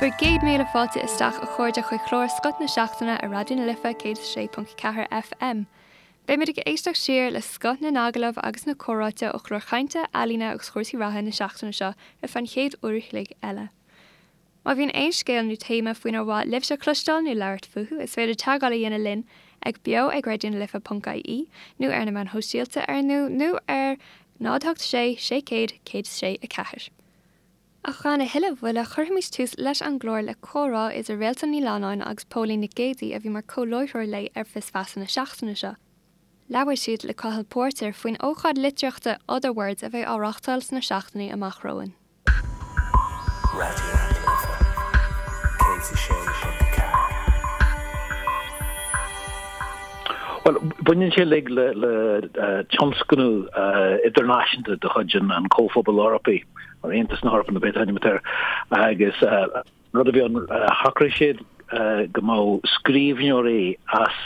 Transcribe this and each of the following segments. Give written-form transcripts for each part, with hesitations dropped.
Bhur gcéad míle fáilte isteach a chairde chuig chlár Scoth na Seachtaine ar Raidió na Life 106.4 FM. Beimid ag éisteacht siar le scoth na n-agallamh agus na comhráite ó chlár chainte, ealaíne agus chúrsaí reatha na seachtaine seo ar feadh an chéad uair a chloig eile. Má bhíonn aon scéal nó téama faoinar mhaith libhse cloisteáil nó labhairt fúthu, is féidir teagmháil a dhéanamh linn ag beo ag raidionalife.ie nó ar na meáin shóisialta ar nó nó ar 0 8 6 600 106 4. Ach gan a thuilleadh mhoille, cuirfimid tús leis an gclár le comhrá idir Réaltán Ní Leannáin agus Póilín Nic Géadaigh a bhí mar comh-láithreoir léi ar Fios Feasa na seachtaine seo. Labhair siad le Cathal Póirtéir faoin ócáid litríochta Otherwords a bheidh á reáchtáil sna seachtainí amach romhainn. Raidió na Life 106.4. Bhuel, baineann sé uilig le tionscnamh idirnáisiúnta de chuid an Chomhphobail Eorpaigh, nó Aontas na hEorpa nó pé t-ainm atá air, agus an rud a bhí ann, shocraigh siad go mbeadh scríbhneoirí as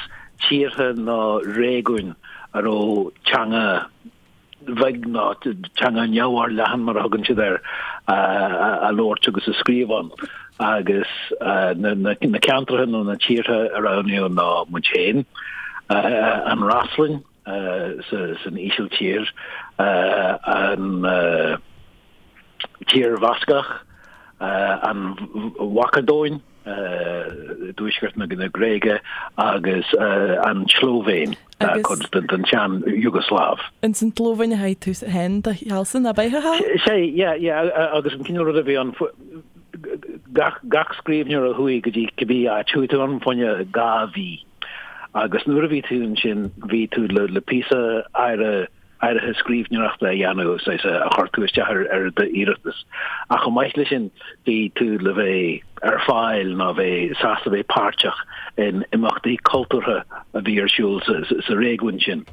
tíortha nó réigiúin a raibh teanga bheag nó teanga neamhfhorleathan mar a thugann siad air, á labhairt agus á scríobh ann. Agus na ceantracha nó na tíortha a roghnaíodh ná muid féin, an Fhreaslainn san Ísiltír, an Tír Bhascach, an Mhacadóin, i dtuaisceart na Gréige agus an tSlóivéin, cuid den tsean Iúgasláiv. Ins an tSlóivéin a thaith tú féin do shealsa, ab ea, a Chathail? Sea, yeah, yeah, agus an cineál rud a bhí ann, gach, gach scríbhneoir a chuaigh go dtí cibé áit, chuaigh tú ann fá choinne 2 mhí agus nuair a bhí tú ansin, bhí tú le, le píosa áirithe, áirithe scríbhneoireachta a dhéanamh, saghas a chuir tú isteach ar d'iarratas. Ach chomh maith leis sin, bhí tú le bheith ar fáil nó bheith sásta bheith páirteach in imeachtaí cultúrtha a bhí ar siúl sa réigiún sin.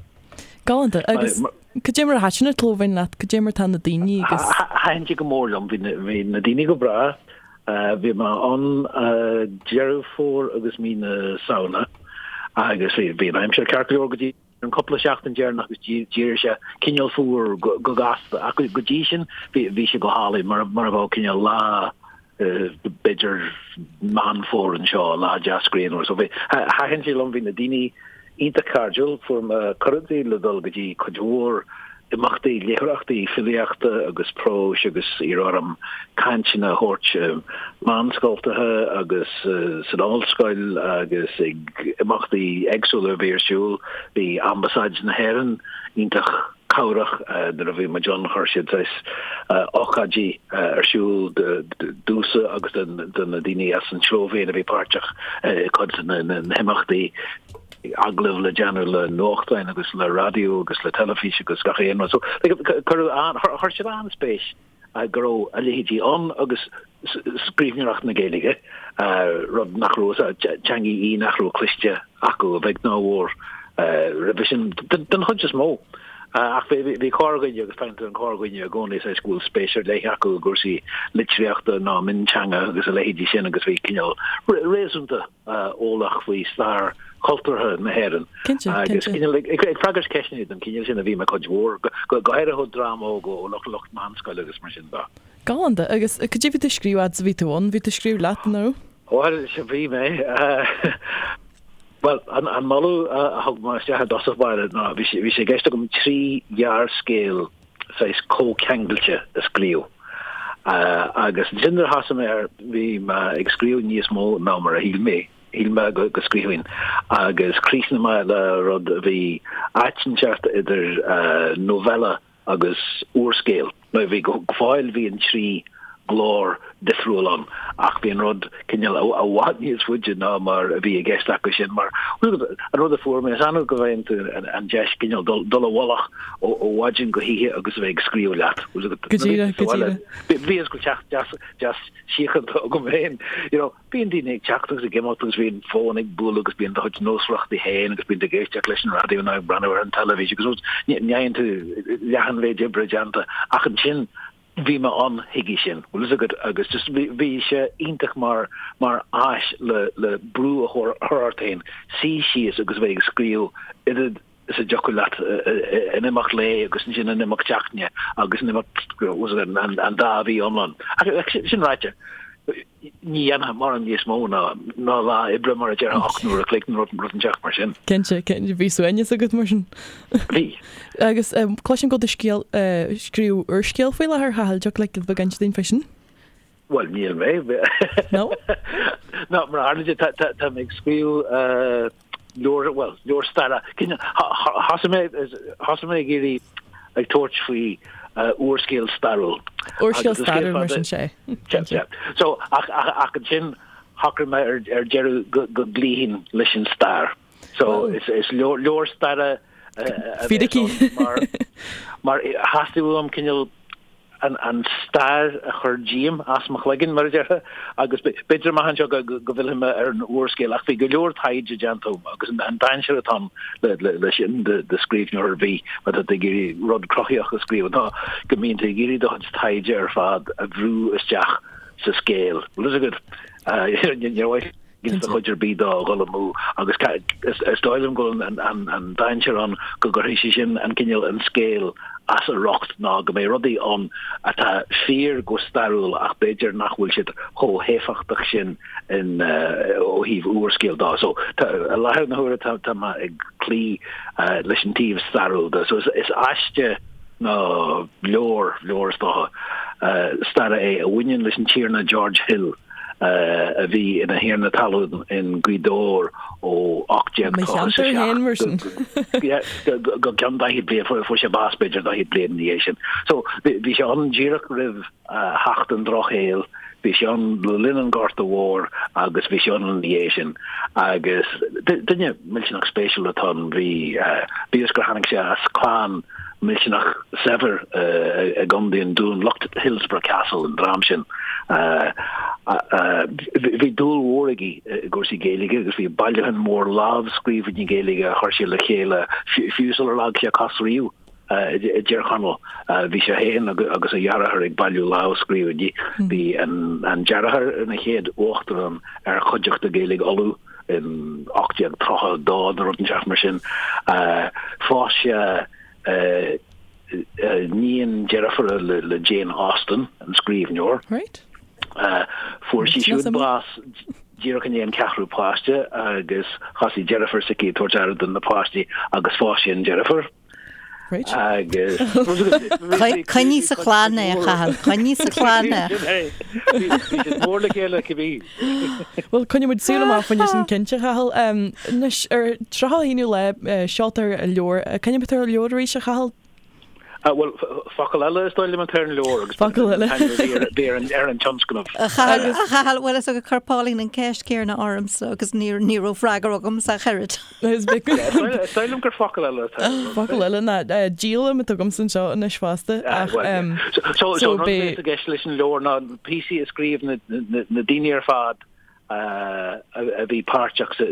Galánta. Agus cad é mar a thaitin an tSlóivéin leat? Cad é mar tá na daoine agus. Thaitin sé go mór liom. Bhí na daoine go breá. Bhí mé ann Deireadh Fómhair agus mí na Samhna agus bhí an aimsir ceart go leor go dtí an cúpla seachtain deireanach agus d'éirigh sé cineál fuar go gasta ach go dtí sin bhí sé go hálainn mar mar a bheadh cineál lá b'fhéidir Meán Fómhair anseo, lá deas grianmhar. So bhí thaitin sé liom, bhí na daoine iontach cairdiúil, fuair mé cuireadh le dul go dtí cuid mhór imeachtaí, léitheoireachtaí filíochta agus próis agus iarradh orm cainteanna a thabhairt i meánscoltacha agus san ollscoil agus ag imeachtaí éagsúla a bhí ar siúl. Bhí Ambasáid na hÉireann iontach cabhrach nuair a bhí muid ann, chuir siad saghas ócáidí ar siúl domhsa agus do na daoine as an tSlóivéin a bhí páirteach i gcuid de na himeachtaí. agallaimh le déanamh le nuachtáin agus le raidió agus le teilifís agus gach aon rud. So cuireadh an, chuir siad an-spéis go raibh a leithéidí ann agus scríbhneoireacht na Gaeilge, rud nach raibh, teanga í nach raibh cloiste acu a bheag ná a mhór roimhe sin, den chuid is mó. Ach bhí corrdhuine agus faigheann tú an corrdhuine i gcónaí saghas go bhfuil spéis ar leith acu i gcúrsaí litríochta ná mionteanga agus a leithéidí sin agus bhí cineál réasúnta eolach faoi stair chultúrtha na hÉireann. Cinnte, Agus cinnte. cineál ag ag freagairt ceisteanna den chineál sin a bhí mé cuid mhór, go go háirithe ó dream óg, ó lucht lucht meánscoile agus mar sin de. Galánta. Agus cad é bhí tú ag scríobh fhad is a bhí tú ann? Bhí tú ag scríobh leat, nó? Bhuel, sea, bhí mé. Bhuel, an an moladh a thug mé isteach i dtosach báire ná bhí sé bhí sé i gceist agam 3 ghearrscéal saghas comhcheangailte a scríobh. Agus ansin nuair a thosaigh mé air, bhí mé ag scríobh níos mó ná mar a shíl mé, shíl mé go scríobhfainn. Agus chríochnaigh mé le rud a bhí áit inteacht idir novella agus úrscéal. Nó bhí go fóill bhí an 3 ghlór difriúil ann ach bhí an rud cineál i bhfad níos faide ná mar a bhí i gceist acu sin mar an rud a fuair mé is annamh go bhfaigheann tú an deis cineál dul i bhfolach ó mhaidin go hoíche agus a bheith ag scríobh leat. Go díreach, go díreach. Bhí go teach deas deas síochánta agam féin. You know, bíonn daoine ag teacht agus ag imeacht agus bíonn fón ag bualadh agus bíonn do chuid nósmhaireachtaí féin agus bíonn tú ag éisteacht leis an raidió nó ag breathnú ar an teilifís agus ní fhaigheann tú leath an mhéid oibre déanta ach ansin Bhí mé ann chuige sin, bhfuil fhios agat, agus just bhí sé iontach mar mar áis le le brú a chur ort féin, suí síos agus a bheith ag scríobh oiread is a dtiocfadh leat in imeacht lae agus ansin in imeacht seachtaine agus in imeacht an dá mhí iomlán. Ach sin ráite. Ní dhéanfá mórán níos mó ná ná lá oibre mar a déarfá 8 n-uair a chloig nó rud rud inteacht mar sin. Cinnte, cinnte, bhí suaimhneas agat mar sin. Bhí. Agus cloisim go bhfuil tú scéal, scríobh úrscéal faoi láthair, a Chathail, dtiocfadh leat giota beag a inse dúinn fé sin? Bhuel, níl mé. No? No, mar a tharla sé, tá tá tá mé ag scríobh leabhar, bhuel, leabhar staire. Cineál, thosaigh mé, thosaigh mé ag iarraidh, ag tabhairt faoi úrscéal stairiúil. Úrscéal stairiúil mar sin sé. Sea. So, ach, ach, ach ansin shocraigh mé ar, ar deireadh go, go gcloífinn leis an stair. So, is, is leabhar, leabhar staire a bheas Fíricí. ann mar, mar theastaigh uaim cineál an, an stair a chur díom as mo chloigeann, mar a déarfá, agus b'fhéidir amach anseo go, go, go bhfillfidh mé ar an úrscéal, ach bhí go leor taighde déanta agam agus an, an dainséar atá ann le, le, le sin do, do scríbhneoir ar bith má tá tú ag iarraidh rud cruthaitheach a scríobh ná go mbíonn tú ag iarraidh do chuid taighde ar fad a bhrú isteach sa scéal. Bhfuil fhios agat? Níor mhaith do chuid ar bith dó a dhul amú agus is dóigh liom go bhfuil an dainséar ann go gcuirfidh sé sin an cineál an scéal as a riocht ná go mbeidh rudaí ann atá fíor go stairiúil ach b'fhéidir nach bhfuil siad chomh héifeachtach sin in ó thaobh úrscéal dó. So tá i láthair na huaire tá tá mé ag cloí leis an taobh stairiúil de. So is aiste nó leabhar leabhar is dócha staire é a bhaineann leis an Tiarna George Hill. a bhí ina thiarna talún in Gaoth Dobhair ó 1837 go ceann 40 bliain, fuair sé bás b'fhéidir 40 bliain ina dhiaidh sin. So bhí sé ann díreach roimh theacht an Drochshaoil, bhí sé ann le linn an Ghorta Mhóir agus bhí sé ann ina dhiaidh sin. Agus duine millteanach spéisiúil atá ann, bhí, bíodh is gur tháinig sé as clann millteanach saibhir i gContae an Dúin, lucht Hillsborough Castle, an dream sin. Bhí dúil mhór aige i gcúrsaí Gaeilge agus bhí bailiúchán mór lámhscríbhinní Gaeilge a chuir sé le chéile fiú sular leag sé cos riamh i dTír Chonaill. Bhí sé féin agus a dheartháir ag bailiú lámhscríbhinní. Bhí an deartháir ina chéad uachtarán ar Chuideachta Gaeilge Uladh. in 1832 nó rud inteacht mar sin. Phós sé iníon deirfiúra le Jane Austen, an scríbhneoir. Right. Fuair sí siúd bás díreach i ndiaidh an ceathrú páiste agus thosaigh deirfiúr s'aici ag tabhairt aire do na páistí agus phós sé an deirfiúr. Right. Agus Coinnigh sa chlann é, a Chathail, coinnigh sa chlann é. Bhí siad mór le chéile cibé. Bhuel, coinneoidh muid súil amach faoin sin cinnte, a Chathail. Anois, ar 31ú lá, seoltar an leabhar. Cén ainm atá ar an leabhar arís, a Chathail? Bhuel, focal eile is dóigh liom atá ar an leabhar agus Focal eile. bhí ar an ar an tionscnamh. A Chathail, a Chathail, bhfuil fhios agat chuir Pauline an ceist céanna ormsa agus ní ní raibh freagra agamsa ach oiread. Is Is dóigh liom gur focal eile atá ar an Focal eile ná díolaim atá agamsa anseo anois fosta ach So so an rud a bhí i gceist leis an leabhar ná píosaí a scríobh na na daoine ar fad a bhí páirteach sa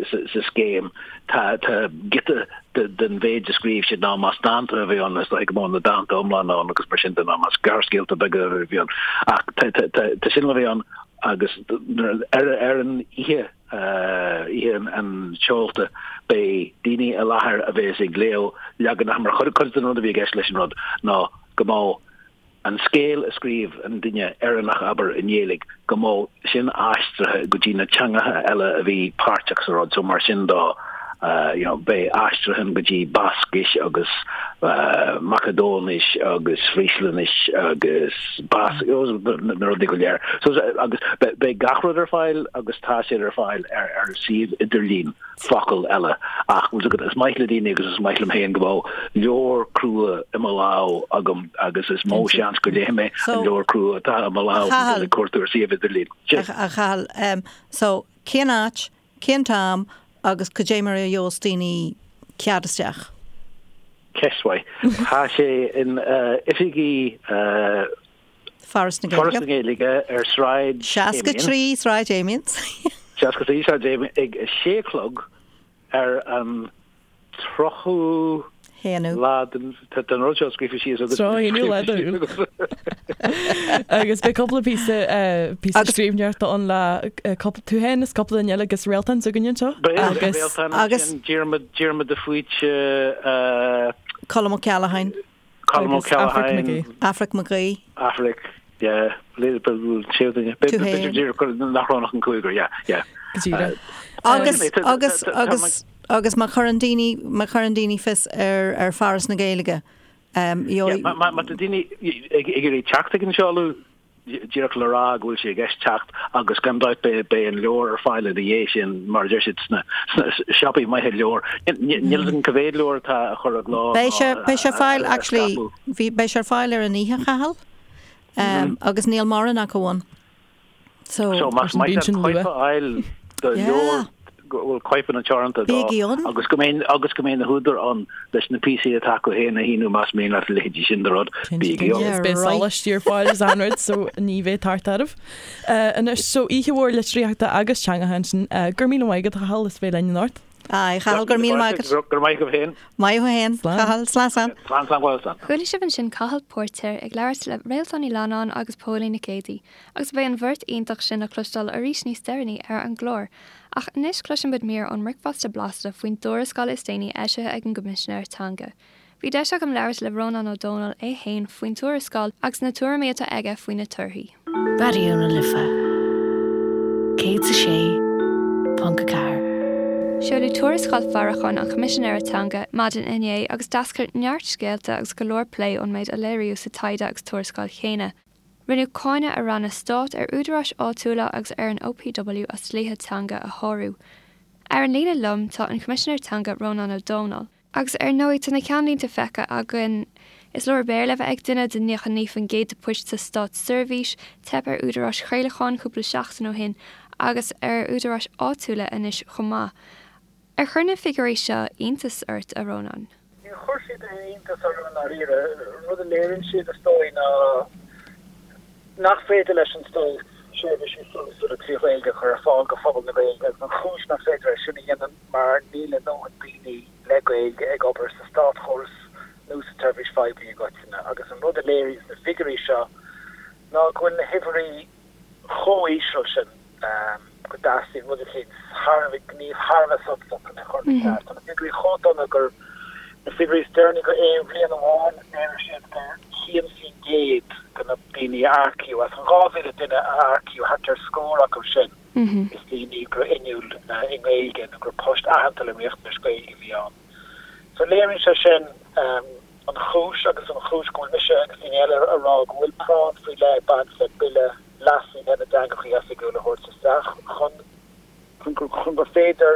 scéim. Tá giota den mhéid a scríobh siad ná más dánta a bhí ann, is dóigh go mbeadh na dánta iomlána ann agus mar sin de, ná más gearrscéalta beaga a bhí ann. Ach tá sin le bheith ann agus ar an oíche, oíche an tseolta, beidh daoine i láthair a bheas ag léamh leaganacha mar chuid den rud a bhí i gceist leis an rud ná go mbeadh an scéal a scríobh an duine Éireannach, abair, i nGaeilge, go mbeadh sin aistrithe go dtí na teangacha eile a bhí páirteach sa rud. So mar sin dó, you know, beidh aistriúchán go dtí Bascais agus Macadóinis agus Fríoslainnis agus Bas, you know, na rudaí go léir. So agus beidh gach rud ar fáil agus tá siad ar fáil ar ar suíomh idirlín. focal eile. Ach bhfuil fhios agat, is maith le daoine agus is maith liom féin go mbeadh leabhar crua i mo lámh agam agus is mó seans go léifidh mé an leabhar crua atá i mo lámh ná dul ag cuartú ar suíomh idirlín. Sin. A Chathail, so cén áit, cén t-am agus cad é mar a gheobhas daoine cead isteach? Ceist mhaith. Tá sé in oifigí. Foras na Gaeilge. Foras na Gaeilge ar Sráid Amiens. 63 Sráid Amiens. 63 Sráid Amiens ag 6 a chlog ar an 30ú haonú. lá den tá an rud seo scríofa síos agat. 30ú lá de Iúil. Agus beidh cúpla píosa píosa scríbhneoireachta ann le cúpla tú féin is cúpla duine eile agus Réaltán s'againne anseo. Beidh Réaltán ansin, Diarmuid Diarmuid de Faoite, Colm Ó Ceallacháin. Colm Ó Agus Aifric Ceallacháin. Mac Aoidh. Aifric Mac Aoidh. Aifric, Yeah, séú duine. B'fhéidir díreach gur nach raibh ach an cúigear, yeah, yeah. Go díreach. Agus, agus, agus, agus má chuireann daoine, má chuireann daoine fios ar, ar Foras na Gaeilge, um, Yeah, má tá daoine ag iarraidh teacht ag an seoladh, díreach le rá go bhfuil sé i gceist teacht agus gan dabht beidh an leabhar ar fáil ina dhiaidh sin mar a deir siad sna siopaí maithe leabhar. Níl fhios agam cá mhéad leabhar atá á chur i gcló Beidh sé, beidh sé ar fáil actually, bhí, beidh sé ar fáil ar an oíche, a Chathail, agus níl mórán acu ann. So, So más maith leat cóip a fháil de leabhar go bhfuil cóipeanna teoranta dó agus go mbeidh agus go mbeidh na húdair ann leis na píosaí atá acu féin a shíniú más mian leat a leithéidí sin de rud, bígí ann. Is beidh sólaistí ar fáil is achan rud so ní bheidh tart oraibh. Anois so oíche mhór litríochta agus teangacha ansin. Go raibh míle maith agat a Chathail as bheith linn anocht. Aye, Chathail, go raibh míle maith agat. Go raibh maith agaibh féin. Maith thú féin, Cathal. Slán, slán. Slán, slán, bhuel, slán. Chuala sibh ansin Cathal Póirtéir ag labhairt le Réaltán Ní Leannáin agus Póilín Nic Géadaigh, agus beidh an bheirt iontach sin le cloisteáil arís níos deireanaí ar an gclár. Ach anois cloiseann muid mír ón mBricfeasta Blasta faoin dtuarascáil is déanaí eisithe ag an gCoimisinéir Teanga. Bhí deis agam labhairt le Rónán Ó Domhnaill é fhéin faoin tuarascáil agus na tuairimí atá aige faoi na torthaí. Raidió na Life 106.4. Seoladh tuarascáil faireacháin an Choimisinéara Teanga maidin inné agus d'eascair neart scéalta agus go leor plé ón méid a léiríodh sa taighde agus tuarascáil chéanna. Rinneadh cáineadh ar ranna stáit, ar údaráis áitiúla agus ar an OPW as dlíthe teanga a shárú. Ar an líne liom tá an Coimisinéir Teanga Rónán Ó Domhnaill. Agus ar ndóigh, tá na ceannlínte feicthe againn. Is leor Béarla a bheith ag duine do 99% de poist sa státseirbhís, teip ar údaráis chraolacháin cúpla seachtain ó shin agus ar údaráis áitiúla anois chomh maith. Ar chuir na figiúirí seo iontas ort, a Rónáin? Níor chuir siad aon iontas orm i ndáiríre. An rud a léiríonn siad, is dóigh, ná nach féidir leis an stát seirbhísí suntasúla 3 Ghaeilge a chur ar fáil do phobal na Gaeilge agus an chúis nach féidir é sin a dhéanamh mar níl a ndóthain daoine le Gaeilge ag obair sa státchóras nó sa tseirbhís phoiblí i gcoitinne agus an rud a léiríonn na figiúirí seo ná go bhfuil na huimhreacha chomh híseal sin go dteastaíonn rud eicínt thar a bheith, gníomh thar a bheith suntasach chun é a chur ina cheart. Tá na figiúirí chomh dona gur na figiúirí is deireanaí go aon bhliain amháin, léirigh siad gur 1% de na daoine a earcaíodh, as an 2,000 duine a earcaíodh, thart ar scór acu sin, is daoine go raibh inniúil i nGaeilge nó go raibh post aitheanta le riachtanais Gaeilge a bhí ann. So léiríonn sé sin an chúis agus an chúis go bhfuil mise agus daoine eile a rá go bhfuil práinn faoi leith ag baint le Bille Leasaithe na dTeangacha Oifigiúla a thabhairt isteach chun chun gur féidir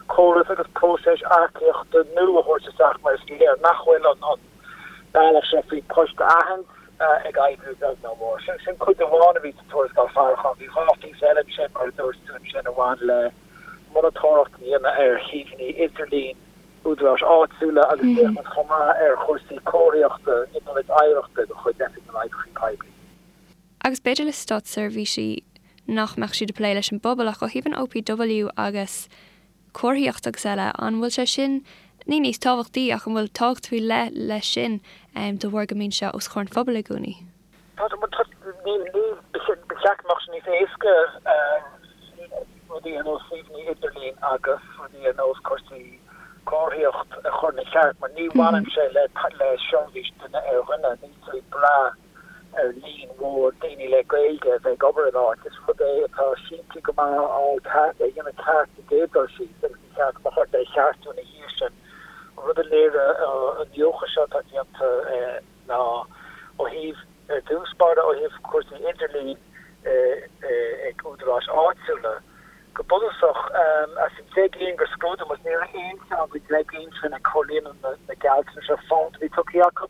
córas agus próiseas earcaíochta nua a thabhairt isteach mar is léir nach bhfuil an bealach seo faoi poist a aithint ag oibriú beag ná mór. Sin sin cuid amháin a bhí sa tuarascáil faireacháin. Bhí 2 phíosa eile ansin mar a dúirt tú ansin a bhain le monatóireacht a dhéanamh ar shuíomhanna idirlín údaráis áitiúla agus féachaint chomh maith ar chúrsaí comharthaíochta in ionaid oidhreachta de chuid Oifig na nOibreacha Poiblí. Agus b'fhéidir le státseirbhísí nach mbeadh siad ag plé leis an bpobal ach ó thaobh an OPW agus comharthaíocht agus eile, an bhfuil sé sin, ní níos tábhachtaí ach an bhfuil tábhacht faoi leith leis sin de bharr go mbíonn sé os comhair an phobail i gcónaí? Tá, níl, níl, ba cheart go mbeadh sé níos éasca rudaí ar nós suíomhanna idirlín agus rudaí ar nós cúrsaí comharthaíocht a chur ina cheart mar ní bhaineann sé le le seirbhís duine ar dhuine, níl tú ag brath ar líon mhór daoine le Gaeilge a bheith ag obair in áit. Is rud é atá simplí go maith a fháil ceart, a dhéanamh ceart sa gcéad dul síos agus ní cheart go mbeadh ort é a cheartú ina dhiaidh sin. An rud a léirigh an iniúchadh seo atá déanta ná ó thaobh, ar dtús báire, ó thaobh cúrsaí idirlín ag údaráis áitiúla, go bunúsach, as an 10 gcinn gur scrúdaigh muid, ní raibh aon cheann den 10 gcinn sin ag comhlíonadh na gealltanais ar fad a bhí tugtha acu.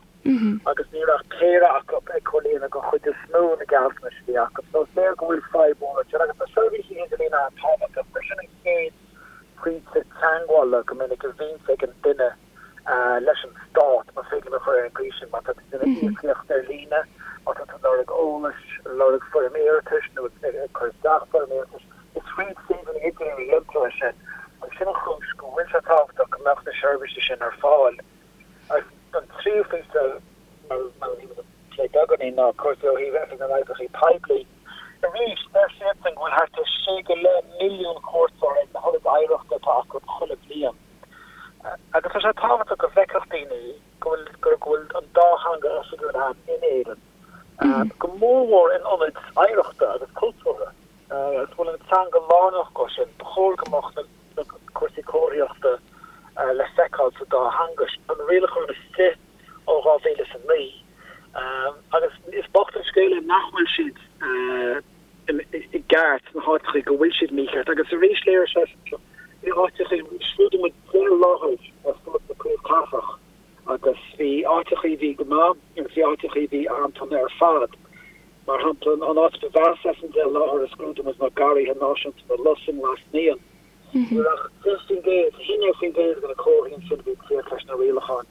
agus ní raibh ach péire acu ag comhlíonadh den chuid is mó na gealltanais a bhí acu. So is léir go bhfuil fadhb mhór ansin agus tá seirbhísí idirlín an-tábhachtach mar sin an chéad phointe teagmhála go minic a bhíonns ag an duine leis an stát, más féidir liom a chur ar an gcaoi sin, má tá tú ag déanamh íocaíocht ar líne, má tá tú ag lorg eolais, lorg foirm iarratais nó ag cur isteach foirm iarratais, is fríd suíomhanna idirlín a dhéantar é sin agus sin an chúis go bhfuil sé tábhachtach go mbeadh na seirbhísí sin ar fáil. Agus an tríú píosa, mar a bhí muid ag plé beagáinín, ná cúrsaí ó thaobh Oifig na nOibreacha Poiblí. Arís, deir siadsan go bhfuil thart ar sé go leith milliún cuairteoir ag na hionaid oidhreachta atá acu chuile bhliain. Agus tá sé tábhachtach go bhfeicfeadh daoine go bhfuil, go bhfuil an dá theanga oifigiúil ann in Éirinn. Go mór mhór in ionaid oidhreachta agus cultúrtha. Agus go bhfuil an teanga lárnach dhó sin, ba chóir go mbeadh na cúrsaí comharthaíochta le feiceáil sa dá theanga. Tá na rialacháin istigh ó 2009 agus is bocht an scéal é nach bhfuil siad i gceart sna háiteachaí go bhfuil siad mícheart. Agus arís léirigh sé seo, bhí áiteachaí, scrúdaigh muid 10 láthair ar fud na príomhchathrach agus bhí áiteachaí a bhí go maith agus bhí áiteachaí a bhí an-dona ar fad. Mar shampla, an áit ba mheasa as an 10 láthair a scrúdaigh muid ná Garraithe Náisiúnta na Lus i nGlas Naíon. Ní raibh ach 10%, 11% de na comharthaí ansin a bhí ag tíocht leis na rialacháin.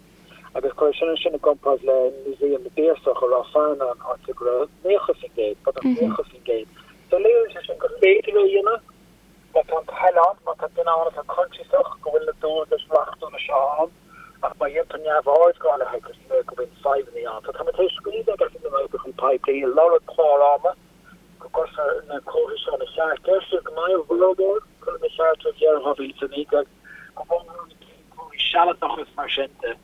Agus cuir sin ansin i gcomparáid le Músaem na bPiarsach i Ráth Fearnáin, áit a go raibh 90%, beagnach 90%. So léiríonn sé sin gur féidir é a dhéanamh má tá an toil ann, má tá duine ann atá coinsiasach go bhfuil na dualgais reachtúla seo ann, ach má dhéantar neamhaird dhá leithéid, is léir go mbíonn fadhbanna ann. So tá muid tar éis scríobh ag Oifig na nOibreacha Poiblí ag lorg clár ama go gcuirfear na comharthaí seo ina cheart. Deir siad go mbeidh a bhformhór curtha ina cheart roimh dheireadh 2019, go mór mór na comharthaí sealadacha is mar sin de.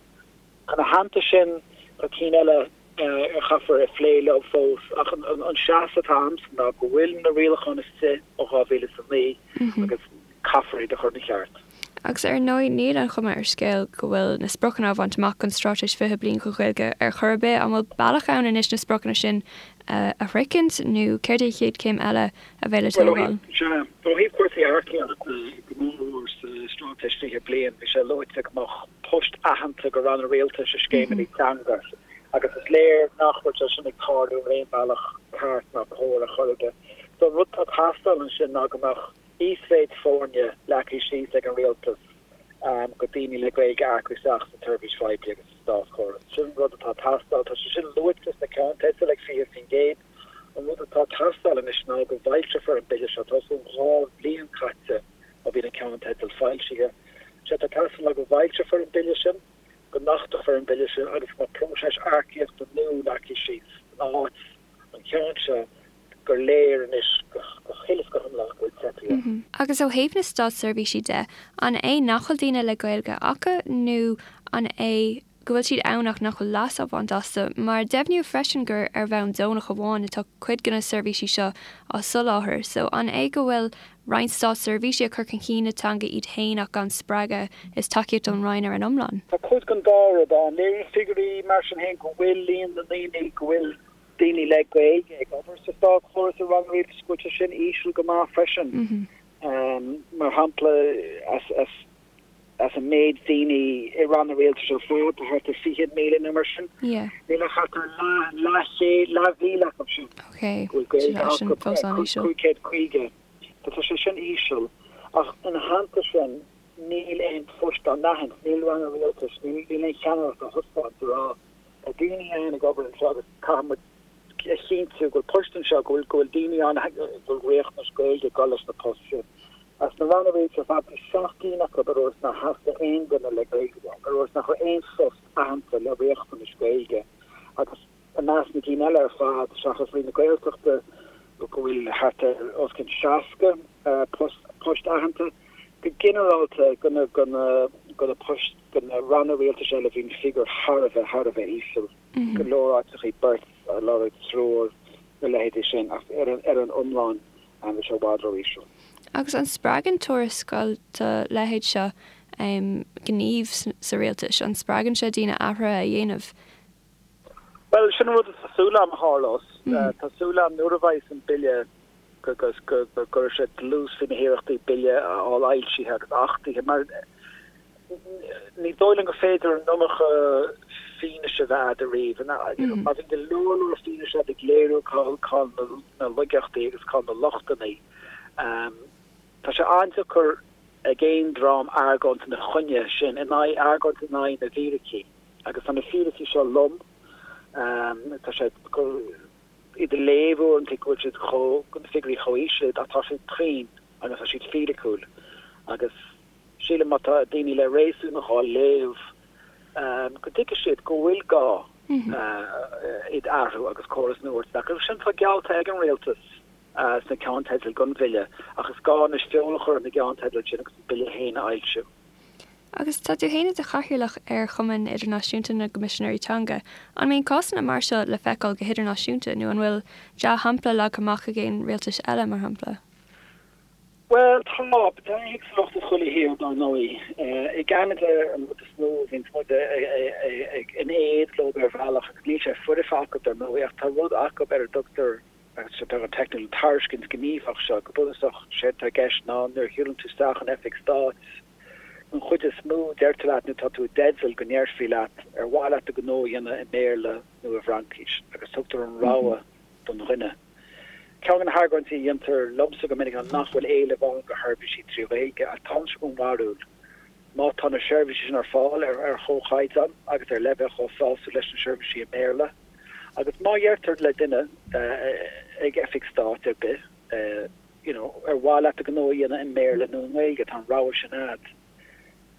Ina theannta sin, tá cinn eile a chaithfear a phlé leo fós, ach an seasamh atá a'msa ná go bhfuil na rialacháin istigh ó 2009 agus caithfear iad a chur ina cheart. Agus ar ndóigh, níl an chuma ar scéal go bhfuil na spriocanna á bhaint amach don Straitéis 20 Bliain don Ghaeilge ar chor ar bith. An bhfuil bealach ann anois na spriocanna sin a shroichint nó céard é an chéad chéim eile a bheidh le tógáil? Sea, ó thaobh cúrsaí earcaíochta, go mór mhór sa Straitéis 20 Bliain, bhí sé luaite go mbeadh poist aitheanta go ranna rialtais i scéimeanna teanga agus is léir nach bhfuil sé sin ag tarlú ar aon bhealach ceart ná cóir ar chor ar bith. So an rud atá ag teastáil ansin ná go mbeadh íosmhéid foirne leagtha síos ag an rialtas go daoine le Gaeilge a earcú isteach sa tseirbhís phoiblí agus sa státchóras. Sin an rud atá ag teastáil. Tá sé sin luaite sna ceannteidil ag 20%. An rud atá ag teastáil anois ná go bhfoilseofar an bille seo. Tá os cionn 2 bhliain caite ó bhí na ceannteidil foilsithe. Sé atá ag teastáil ná go bhfoilseofar an bille sin, go n-achtófar an bille sin agus go mbeadh próiseas earcaíochta nua leagtha síos in áit an cheann seo gur léir anois go huile is go hiomlán go bhfuil teipthe air. Agus ó thaobh na státseirbhísí de, an é nach bhfuil daoine le Gaeilge acu nó an é go bhfuil siad ann ach nach bhfuil leas á bhaint astu? Mar deimhníodh freisin gur ar bhonn deonach amháin atá cuid de na seirbhísí seo á soláthar, so an é go bhfuil roinnt státseirbhísí ag cur chun cinn na teanga iad féin ach gan spreagadh is tacaíocht ón Roinn ar an iomlán? Tá cuid den dá rud ann. Léiríonn figiúirí mar sin féin go bhfuil líon na ndaoine go bhfuil daoine le Gaeilge ag obair sa státchóras i ranna rialtais go bhfuil sé sin íseal go maith freisin. Mar shampla, as an méid daoine i ranna rialtais ar fad, tá thart ar 20,000 nó mar sin, níl ach thart ar leathchéad, leathmhíle acu sin go bhfuil Gaeilge acu, 550. Tá sé sin íseal. Ach ina theannta sin, níl aon phoist á n-aithint, níl ranna rialtais, níl aon cheannaireacht á thaispeáint a rá, Tá daoine ann ag obair anseo agus caithfidh muid a chinntiú go bhfuil poist anseo, go bhfuil, go bhfuil daoine ann go bhfuil riachtanais Gaeilge ag dul leis na poist sin. As na ranna rialtais ar fad, bhí 7 gcinn acu a dúirt nár theastaigh aon duine le Gaeilge uathu, a dúirt nach raibh aon phost aitheanta le riachtanais Gaeilge agus i measc na gcinn eile ar fad, seachas Roinn na Gaeltachta, go bhfuil thart ar os cionn 60 post, poist aitheanta. Go ginearálta, go na, go na, go na poist, go na ranna rialtais eile bhí an figiúr thar a bheith, thar a bheith íseal. Go leor áiteachaí beirt á lorg, triúr, na leithéidí sin, ach ar an, ar an iomlán bhí sé i bhfad ró-íseal. Agus an spreagann tuarascáil dá leithéid seo gníomh sa rialtas? An spreagann sé daoine athruithe a dhéanamh? Bhuel, sin an rud atá súil agam a tharlós. Tá súil agam nuair a bheidh an bille go gcuirfidh sé dlús faoi na hiarrachtaí bille a fháil fhoilsithe agus achtaithe mar ní dóigh liom gur féidir an iomarca fianaise a bheith agat ariamh. Má bhíonn go leor leor fianaise agat ag léiriú cá bhfuil na laigeachtaí agus cá bhfuil na lochtanna, tá sé an-deacair ag aon dream argóint ina choinne sin, in aghaidh, argóint in aghaidh na bhfíricí. Agus tá na fíricí seo lom. Tá sé iad a léamh uaireanta go bhfuil siad chomh, na figiúirí chomh íseal ach tá siad cruinn agus tá siad fíriciúil. Agus sílim má tá daoine le réasún á léamh go dtuigfidh siad go bhfuil gá iad a athrú agus córas nua a thabhairt isteach. Agus sin atá geallta ag an rialtas sna ceannteidil don bhille ach is gá anois feoil a chur ar na gceannteidil sin agus an bille féin a fhoilsiú. Agus tá tú féin i do chathaoirleach ar Chumann Idirnáisiúnta na gCoimisinéirí Teanga. An mbíonn cásanna mar seo le feiceáil go hidirnáisiúnta nó an bhfuil dea-shampla leagtha amach ag aon rialtais eile, mar shampla? Bhuel, tá. Tá éagsúlacht i chuile thír, dar ndóigh. I gCeanada, an rud is mó a bhíonns muid in éad leo ar bhealach, agus níl sé foirfe acu, dar ndóigh, ach tá rud acu ar a dtugtar, agus tá sé beagán teicniúil, an tairiscint ghníomhach seo. Go bunúsach, séard atá i gceist ná nuair a shiúlann tú isteach in oifig stáit, an chuid is mó, deirtear leat, nó tá tú i dteideal go ndéarfaí leat, ar mhaith leat do ghnó a dhéanamh i mBéarla nó i bhFraincis, agus tugtar an rogha don dhuine. Ceann de na hargóintí a dhéantar liomsa go minic ná nach bhfuil éileamh ann do sheirbhísí trí Ghaeilge ach táimse den bharúil má tá na seirbhísí sin ar fáil ar chomhchaighdeán agus ar leibhéal chomh sásúil leis na seirbhísí i mBéarla agus má dheirtear le duine ag oifig stáit ar bith you know ar mhaith leat do ghnó a dhéanamh i mBéarla nó i nGaeilge tá an rogha sin a'd.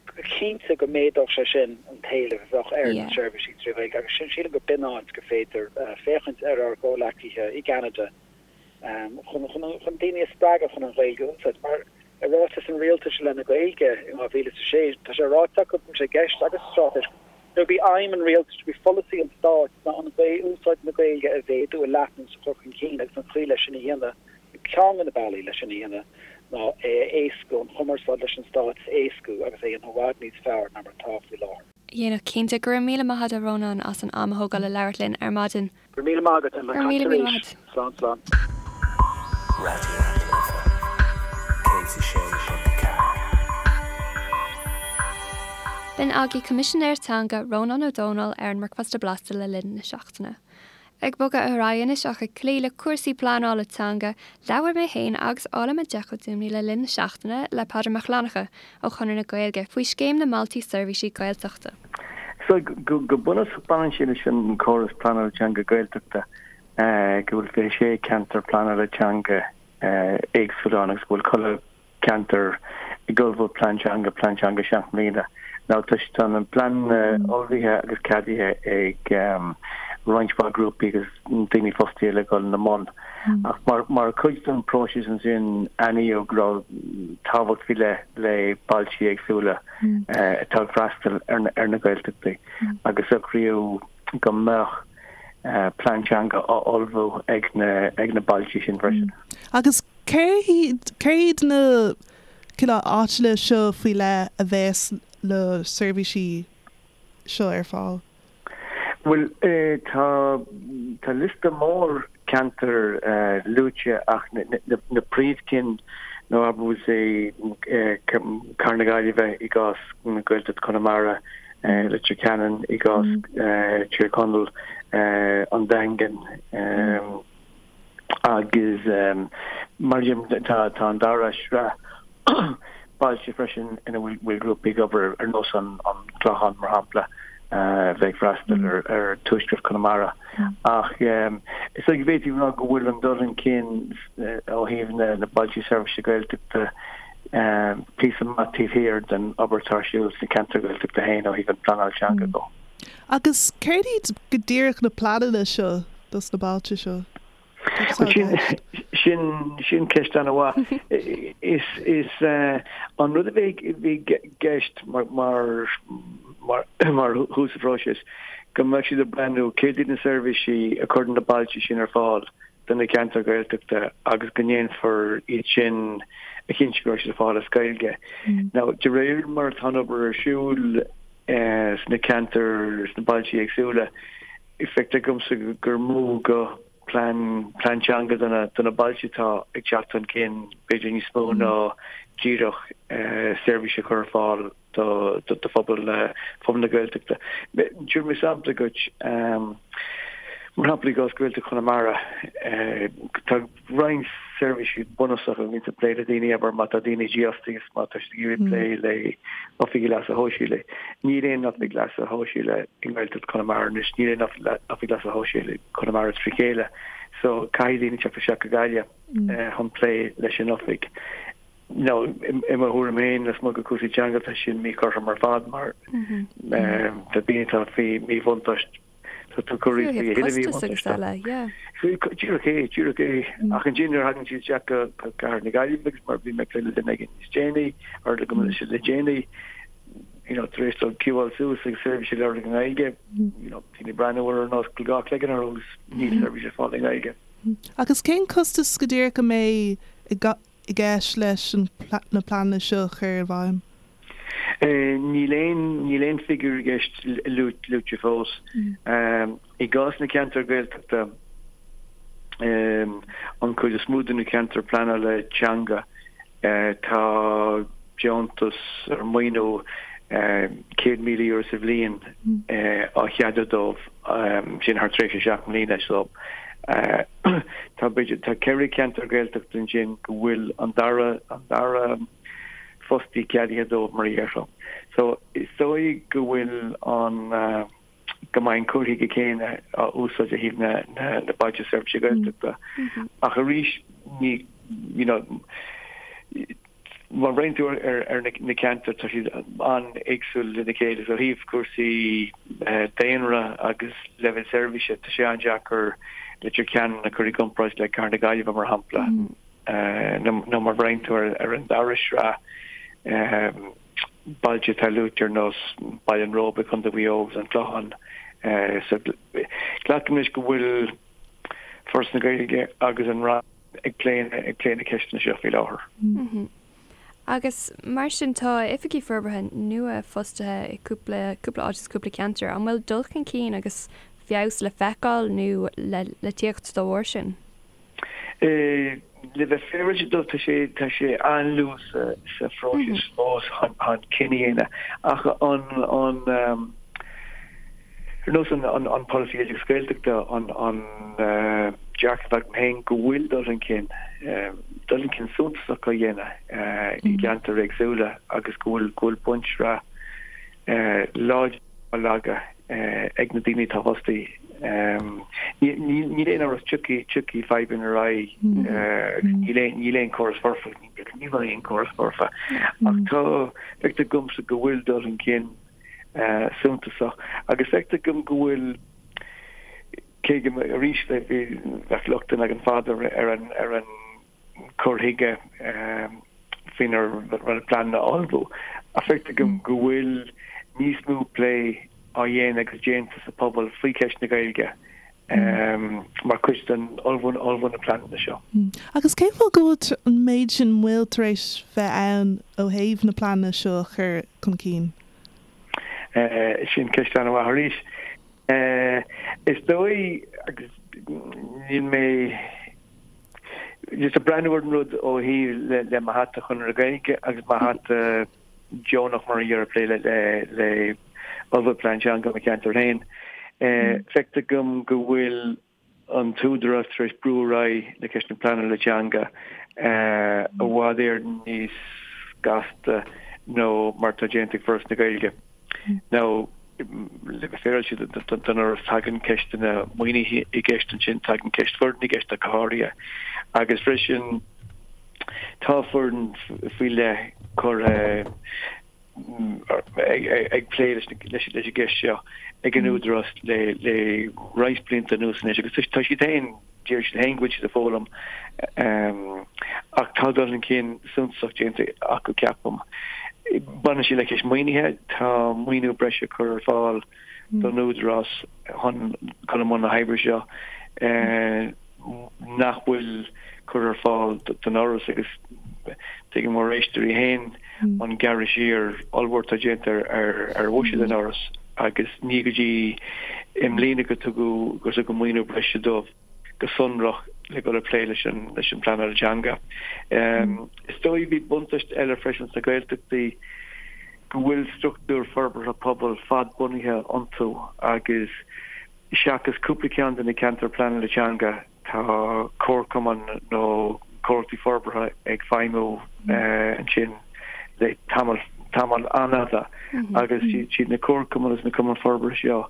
Go cinnte go méadódh sé sin an t-éileamh a bheadh ar na seirbhísí trí Ghaeilge agus sin sílim go b'in áit gur féidir féachaint ar ár gcomhleacaithe i gCeanada chun chun daoine a spreagadh chun an Ghaeilge a úsáid. Mar i ráiteas an rialtais i leith na Gaeilge in 2006 tá sé ráite acu go bhfuil sé i gceist agus sa straitéis gurb í aidhm an rialtais, gurb í pholasaí an stáit ná an úsáid na Gaeilge a mhéadú, a leathnú is a chur chun cinn agus an chaoi leis sin a dhéanamh Ceann de na bealaí leis sin a dhéanamh ná é a éascú, an chumarsáid leis an Stát a éascú agus é a dhéanamh i bhfad níos fearr ná mar atá faoi láthair. dhéanamh cinnte. Go raibh míle maith agat a Rónáin as an am a thógáil le labhairt linn ar maidin. Go raibh míle maith agat Emma. Go raibh míle míle maith agat. Slán slán. Raidió na Life 106.4. B'in agaibh Coimisinéir Teanga Rónán Ó Domhnaill ar an mBricfeasta Blasta le linn na seachtaine. Ag bogadh ar aghaidh anois ach ag cloí le cúrsaí pleanála teanga, labhair mé féin agus Áille Mac Dúmhnaí le linn na seachtaine le Peadar Mac Fhlannchadha ó Chonradh na Gaeilge faoi scéim na mBailte Seirbhísí Gaeltachta. So, go bunúsach baineann sé leis an córas pleanála teanga Gaeltachta, go bhfuil 26 ceantar pleanála teanga éagsúil ann agus go bhfuil chuile ceantar ag ullmhú plean teanga, plean teanga 7 mbliana. Now tá tá na pleananna ullmhaithe agus ceadaithe ag roinnt mhaith grúpaí agus daoine fostaithe le dhul ina mbun. Ach mar mar chuid den próiseas ansin aithníodh go raibh tábhacht faoi leith le bailte éagsúla atá ag freastal ar na ar na Gaeltachtaí agus socraíodh go mbeadh plean teanga á ullmhú ag na ag na bailte sin freisin. Agus Céard iad na cineál áiteanna seo faoi leith a bheas na seirbhísí seo ar fáil? Bhuel, tá tá liosta mór ceantar luaite ach na príomhchinn ná abair say Cathair na Gaillimhe i gcás Gaeltacht Chonamara, Leitir Ceanainn i gcás Tír Chonaill, an Daingean. Agus mar sin tá an dara sraith bailte freisin ina bhfuil grúpaí ag obair ar nós an Clochán mar shampla a bheidh ag freastal ar tuaisceart Chonamara. Ach is dóigh go bhféadfaí a rá go bhfuil an dul chun cinn ó thaobh na bailte seirbhíse Gaeltachta píosa maith taobh thiar den obair atá ar siúl sna ceantair Ghaeltachta féin ó thaobh an phleanáil teanga de. Agus céard iad go díreach na pleananna seo dos na bailte seo? Cad atá i gceist? Sin, sin ceist an-mhaith. Is, is an rud a bhí i gceist mar, mar, mar, mar thús an phróisis, go mbeadh siad ag breathnú céard iad na seirbhísí a chuireann na bailte sin ar fáil do na ceantair Ghaeltachta agus go ndéanfar iad sin a chinntiú go raibh siad ar fáil as Gaeilge. Now, de réir mar atá an obair ar siúl sna ceantair, sna bailte éagsúla, feictear domsa gur mó go plean, plean teanga do na, do na bailte atá ag teacht chun cinn, b'fhéidir níos mó ná díreach seirbhís a chur ar fáil do, do phobal na, phobal na Gaeltachta. Tabharfaidh mé sampla dhuit, mar shampla i gcás Gaeltacht Chonamara, tá roinnt seirbhísí bunúsacha a bhíonn ag plé le daoine, abair má tá daoine dífhostaithe agus má tá siad ag iarraidh plé le oifigigh leasa shóisialaigh. Níl aon oifig leasa shóisialaigh i nGaeltacht Chonamara anois, níl aon oifig leasa shóisialaigh Chonamara trí chéile, so caithfidh daoine teacht isteach go Gaillimh chun plé leis an oifig. Now, i mo thuairim féin, lasmuigh de chúrsaí teanga, tá sin míchothrom ar fad mar tá daoine atá faoi mhíbhuntáiste, tá tú ag cur iad faoi a thuilleadh míbhuntáiste. Díreach é, díreach é. Ach ansin nuair a thagann siad isteach go Cathair na Gaillimhe agus mar bhí mé ag plé le duine éigin níos déanaí, or le go le déanaí. you know, tar éis dóibh ciúáil suas agus seirbhís a lorg i nGaeilge, you know, daoine ag breathnú orthu ar nós go bhfuil dhá chloigeann orthu agus níl seirbhís ar fáil i nGaeilge. Agus cén costas go díreach a mbeidh i gceist leis na pleananna seo a chur i bhfeidhm? Níl aon, níl aon figiúr i gceist luaite fós. I gcás na ceantar Gaeltachta, an chuid is mó de na ceantair pleanála teanga, tá deontas ar maoiniú €100,000 sa bhliain á cheadú dóibh, sin thar tréimhse 7 mbliana. So tá b'fhéidir, tá 4 cheantar Gaeltachta ansin go bhfuil an dara, an dara fostaí ceadaithe dóibh mar a déarfá. So is dóigh go bhfuil an. go mbeidh an cur chuige céanna á úsáid ó thaobh na na Bailte Seirbhíse Gaeltachta. Ach arís ní you know má bhreathnaíonn tú ar ar na ceantair tá siad an-éagsúil lena chéile so ó thaobh cúrsaí daonra agus leibhéal seirbhíse tá sé an-deacair Leitir Ceanainn a chur i gcomparáid le Cathair na Gaillimhe mar shampla nó má bhreathnaíonn tú ar an dara sraith bailte atá luaite ar nós Baile an Róba, Contae Mhaigh Eo agus An Clochán. So glacaim leis go bhfuil Foras na Gaeilge agus an Roinn ag plé ag plé na ceisteanna seo faoi láthair. Agus mar sin tá oifigigh forbartha nua fostaithe i cúpla cúpla áit agus cúpla ceantar. An bhfuil dul chun cinn agus feabhas le feiceáil nó le le tíocht dá bharr sin? Le bheith féaráilte dóibh, tá sé, tá sé an-luath sa, sa phróiseas fós chun, chun cinneadh a dhéanamh. Ach an, an, ar nós an, an, an polasaí oideachais Gaeltachta, an, an dearcadh atá agam féin go bhfuil dul chun cinn, dul chun cinn suntasach á dhéanamh i gceantair éagsúla agus go bhfuil, go bhfuil bunsraith láidir á leagadh ag na daoine atá fostaithe. Níl aon amhras tiocfaidh tiocfaidh fadhbanna ar aghaidh agus níl aon níl aon chóras foirfe, ní bheidh aon chóras foirfe. Ach tá, feictear domsa go bhfuil dul chun cinn suntasach agus feictear dom go bhfuil, cé go arís bheadh lochtanna againn fada ar an ar an cur chuige faoinar rinneadh pleananna a ullmhú, ach feictear dom go bhfuil níos mó plé á dhéanamh agus déanta sa phobal faoi cheist na Gaeilge mar chuid den ullmhú ullmhú na pleananna seo. Agus cén fáth go bhfuil an méid sin moill tar éis bheith ann ó thaobh na pleananna seo a chur chun cinn? Sin ceist an-mhaith arís. Is dóigh, agus níl mé just ag breathnú ar an rud ó thaobh le mo hata Chonradh na Gaeilge agus mo hata deonach mar a déarfá ag plé le le ullmhú plean teanga mo cheantar féin. Feictear dom go bhfuil an t-údarás tar éis brú ar aghaidh le ceist na pleanála teanga i bhfad Éireann níos gasta ná mar atá déanta ag Foras na Gaeilge. Now, le bheith féaráilte don Fhoras, tagann ceisteanna maoinithe i gceist ansin, tagann ceist foireann i gceist ach go háirithe, agus freisin tá foireann faoi leith curtha ag plé leis an gceist seo ag an Údarás le roinnt blianta anuas anois agus tá siad féin Deir siad féin go bhfuil siad ag foghlaim ach tá dul chun cinn suntasach déanta acu, ceapaim. Baineann sé le ceist maoinithe, tá maoiniú breise curtha ar fáil don Údarás chun dul i mbun na hoibre seo nach bhfuil curtha ar fáil don Fhoras agus tuigeann ár n-éisteoirí féin an gearradh siar ollmhór atá déanta ar bhuiséad an Fhorais agus ní go dtí i mbliana go tugadh gur tugadh maoiniú breise dóibh go sonrach le dul ag plé leis an leis an bpleanáil teanga. Is dóigh bhí buntáiste eile freisin sna Gaeltachtaí go bhfuil struchtúir forbartha pobail fadbhunaithe iontu agus seachas cúpla ceann de na ceantair pleanála teanga Tá comharchumainn nó comhlachtaí forbartha ag feidhmiú ansin le tamall, tamall an-fhada agus siad na comharchumainn agus na cumainn forbartha seo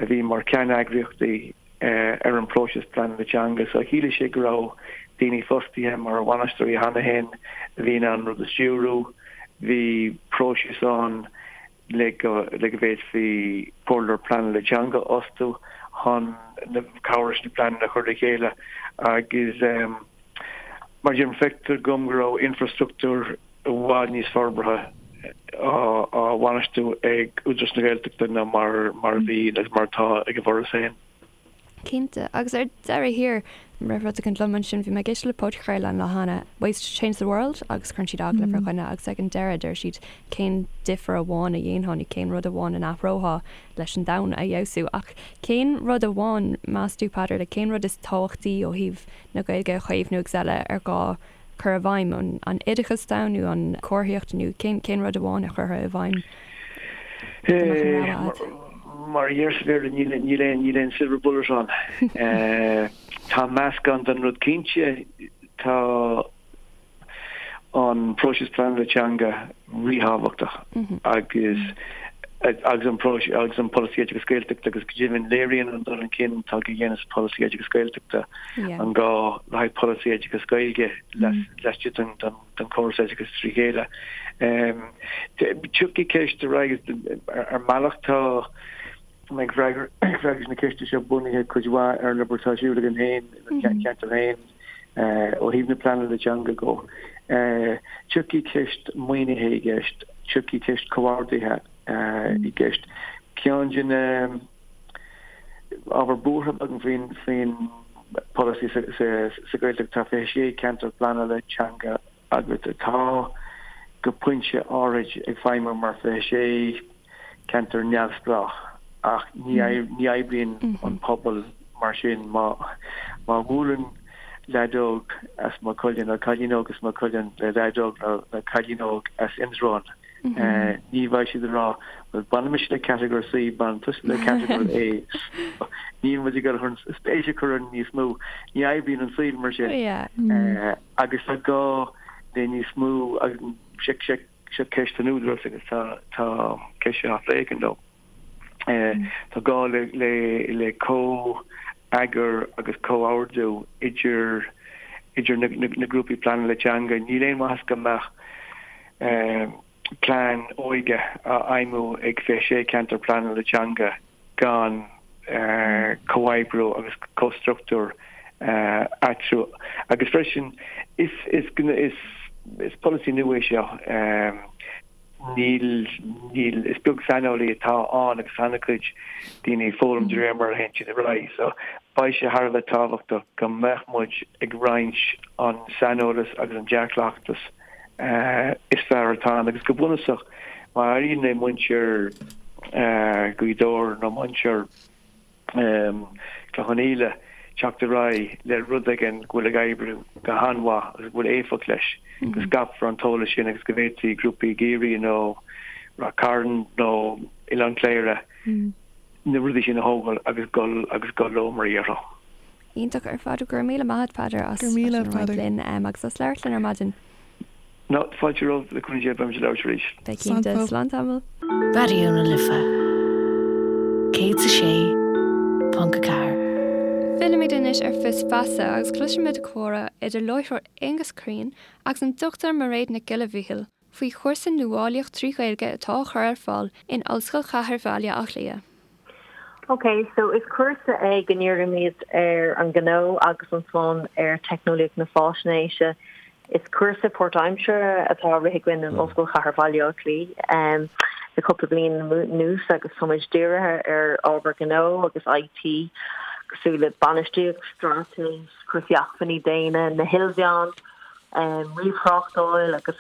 a bhí mar cheanneagraíochtaí ar an bpróiseas pleanála teanga. So chiallaigh sé go raibh daoine fostaithe mar bhainisteoirí cheana féin a bhí in ann an rud a stiúrú. Bhí próiseas ann le go le go bhféadfaí comhairleoir pleanála teanga a fhostú chun cabhrú leis na pleananna a chur le chéile agus mar a deirim feictear dom go raibh infrastruchtúr i bhfad níos forbartha. á bhainistiú ag Údarás na Gaeltachta ná mar a bhí agus mar atá ag an bhForas féin. Cinnte. Agus ar deireadh thiar, rith rud éigin liom ansin, bhí mé ag éisteacht le podchraoladh an lá cheana, Ways to Change the World, agus cuireann siad agallamh ar dhuine agus ag an deireadh deir siad cén difear amháin a dhéanfá nó cén rud amháin a n-athrófá leis an domhan a fheabhsú. Ach cén rud amháin, meas tú, Peadar, like cén rud is tábhachtaí ó thaobh na Gaeilge a chaomhnú agus eile ar gá cur i bhfeidhm, an oideachas atá ann nó an comharthaíocht nó cén cén rud amháin a chuirfeá i bhfeidhm dá mbeadh an rogha agat? Mar a deir sa Bhéarla níl níl aon níl aon silver bullet ann. Tá meascán den rud cinnte, tá an próiseas pleanála teanga ríthábhachtach agus agus an próiseas agus an polasaí oideachas Gaeltachta agus go deimhin léiríonn an dul chun cinn atá á dhéanamh sa pholasaí oideachas Gaeltachta an gá le haghaidh polasaí oideachas Gaeilge laistigh den den chóras oideachais trí chéile. Tiocfaidh ceist ar aghaidh ar mbealach tá ag freagairt na ceiste seo bunaithe cuid mhaith ar an obair atá ar siúl againn féin i mo cheantar féin. Ó thaobh na pleanála teanga go, tiocfaidh ceist maoinithe i gceist, tiocfaidh ceist comhordaithe i gceist. Ceann de na ábhair buartha agam faoin faoin polasaí sa Ghaeltacht, tá 26 ceantar pleanála teanga agat atá go pointe áirid ag feidhmiú mar 26 ceantar neamhspleách ach ní ní oibríonn an pobal mar sin. Má má bhuaileann leaid óg as Maigh Cuilinn nó cailín óg as Maigh Cuilinn le leaid óg nó cailín óg as Indreabhán, ní bheidh siad ag rá bhuel baineann mise le catagóir C, baineann tusa le catagóir A. Níl muid ag dul chun spéis a chur orainn níos mó. Ní oibríonn an saol mar sin. Agus tá gá le níos mó agus seo ceist don Údarás agus tá tá ceist seo á phlé againn leo. Tá gá le le le comh-eagar agus comhordú idir idir na na grúpaí pleanála teanga. Níl aon mhaitheas go mbeadh plean óige á fheidhmiú ag 26 ceantar pleanála teanga gan comhoibriú agus comhstruchtúr eatarthu. Agus freisin, is is polasaí nua é seo. Níl, níl, is beag saineolaí atá ann agus tá an-chuid daoine ag foghlaim de réir mar a théann siad ar aghaidh. So, beidh sé thar a bheith tábhachtach go mbeadh muid ag roinnt an saineolas agus an dea-chleachtas is fearr atá ann agus go bunúsach má éiríonn le muintir Ghaoth Dobhair nó muintir Chloich Cheann Fhaola teacht ar aghaidh le rud éigin go bhfuil ag oibriú go han-mhaith agus go bhfuil éifeacht leis, go scaipfear an t-eolas sin agus go bhféadfaí grúpaí i gCiarraí nó Ráth Cairn nó Oileán Cléire na rudaí sin a thógáil agus dul agus dul leo mar a déarfá. Iontach ar fad. Go raibh míle maith agat Peadar as as sin a roinnt linn agus as labhairt linn ar maidin. No, fáilte romhat, le cúnamh Dé beimid ag labhairt arís. Beidh cinnte. Slán tamall. Raidió na Life 106.4. Fillimid anois ar Fios Feasa agus cloisfimid comhrá idir láithreoir Aengus Crean agus an Dr Mairéad Nic Giolla Mhichíl faoi chúrsa Nuálaíocht trí Ghaeilge atá á chur ar fáil in Ollscoil Chathair Bhaile Átha Cliath. Ok, so is cúrsa é go ndírímid ar an ngnó agus ansan ar teicneolaíocht na fáisnéise. Is cúrsa páirtaimseartha atá á rith againn in Ollscoil Chathair Bhaile Átha Cliath le cúpla bliain anuas agus táimid dírithe ar ábhar gnó agus IT cosúil le bainistíocht, straitéis, cúrsaí acmhainní daonna, na hilmheáin, ríomhthráchtáil agus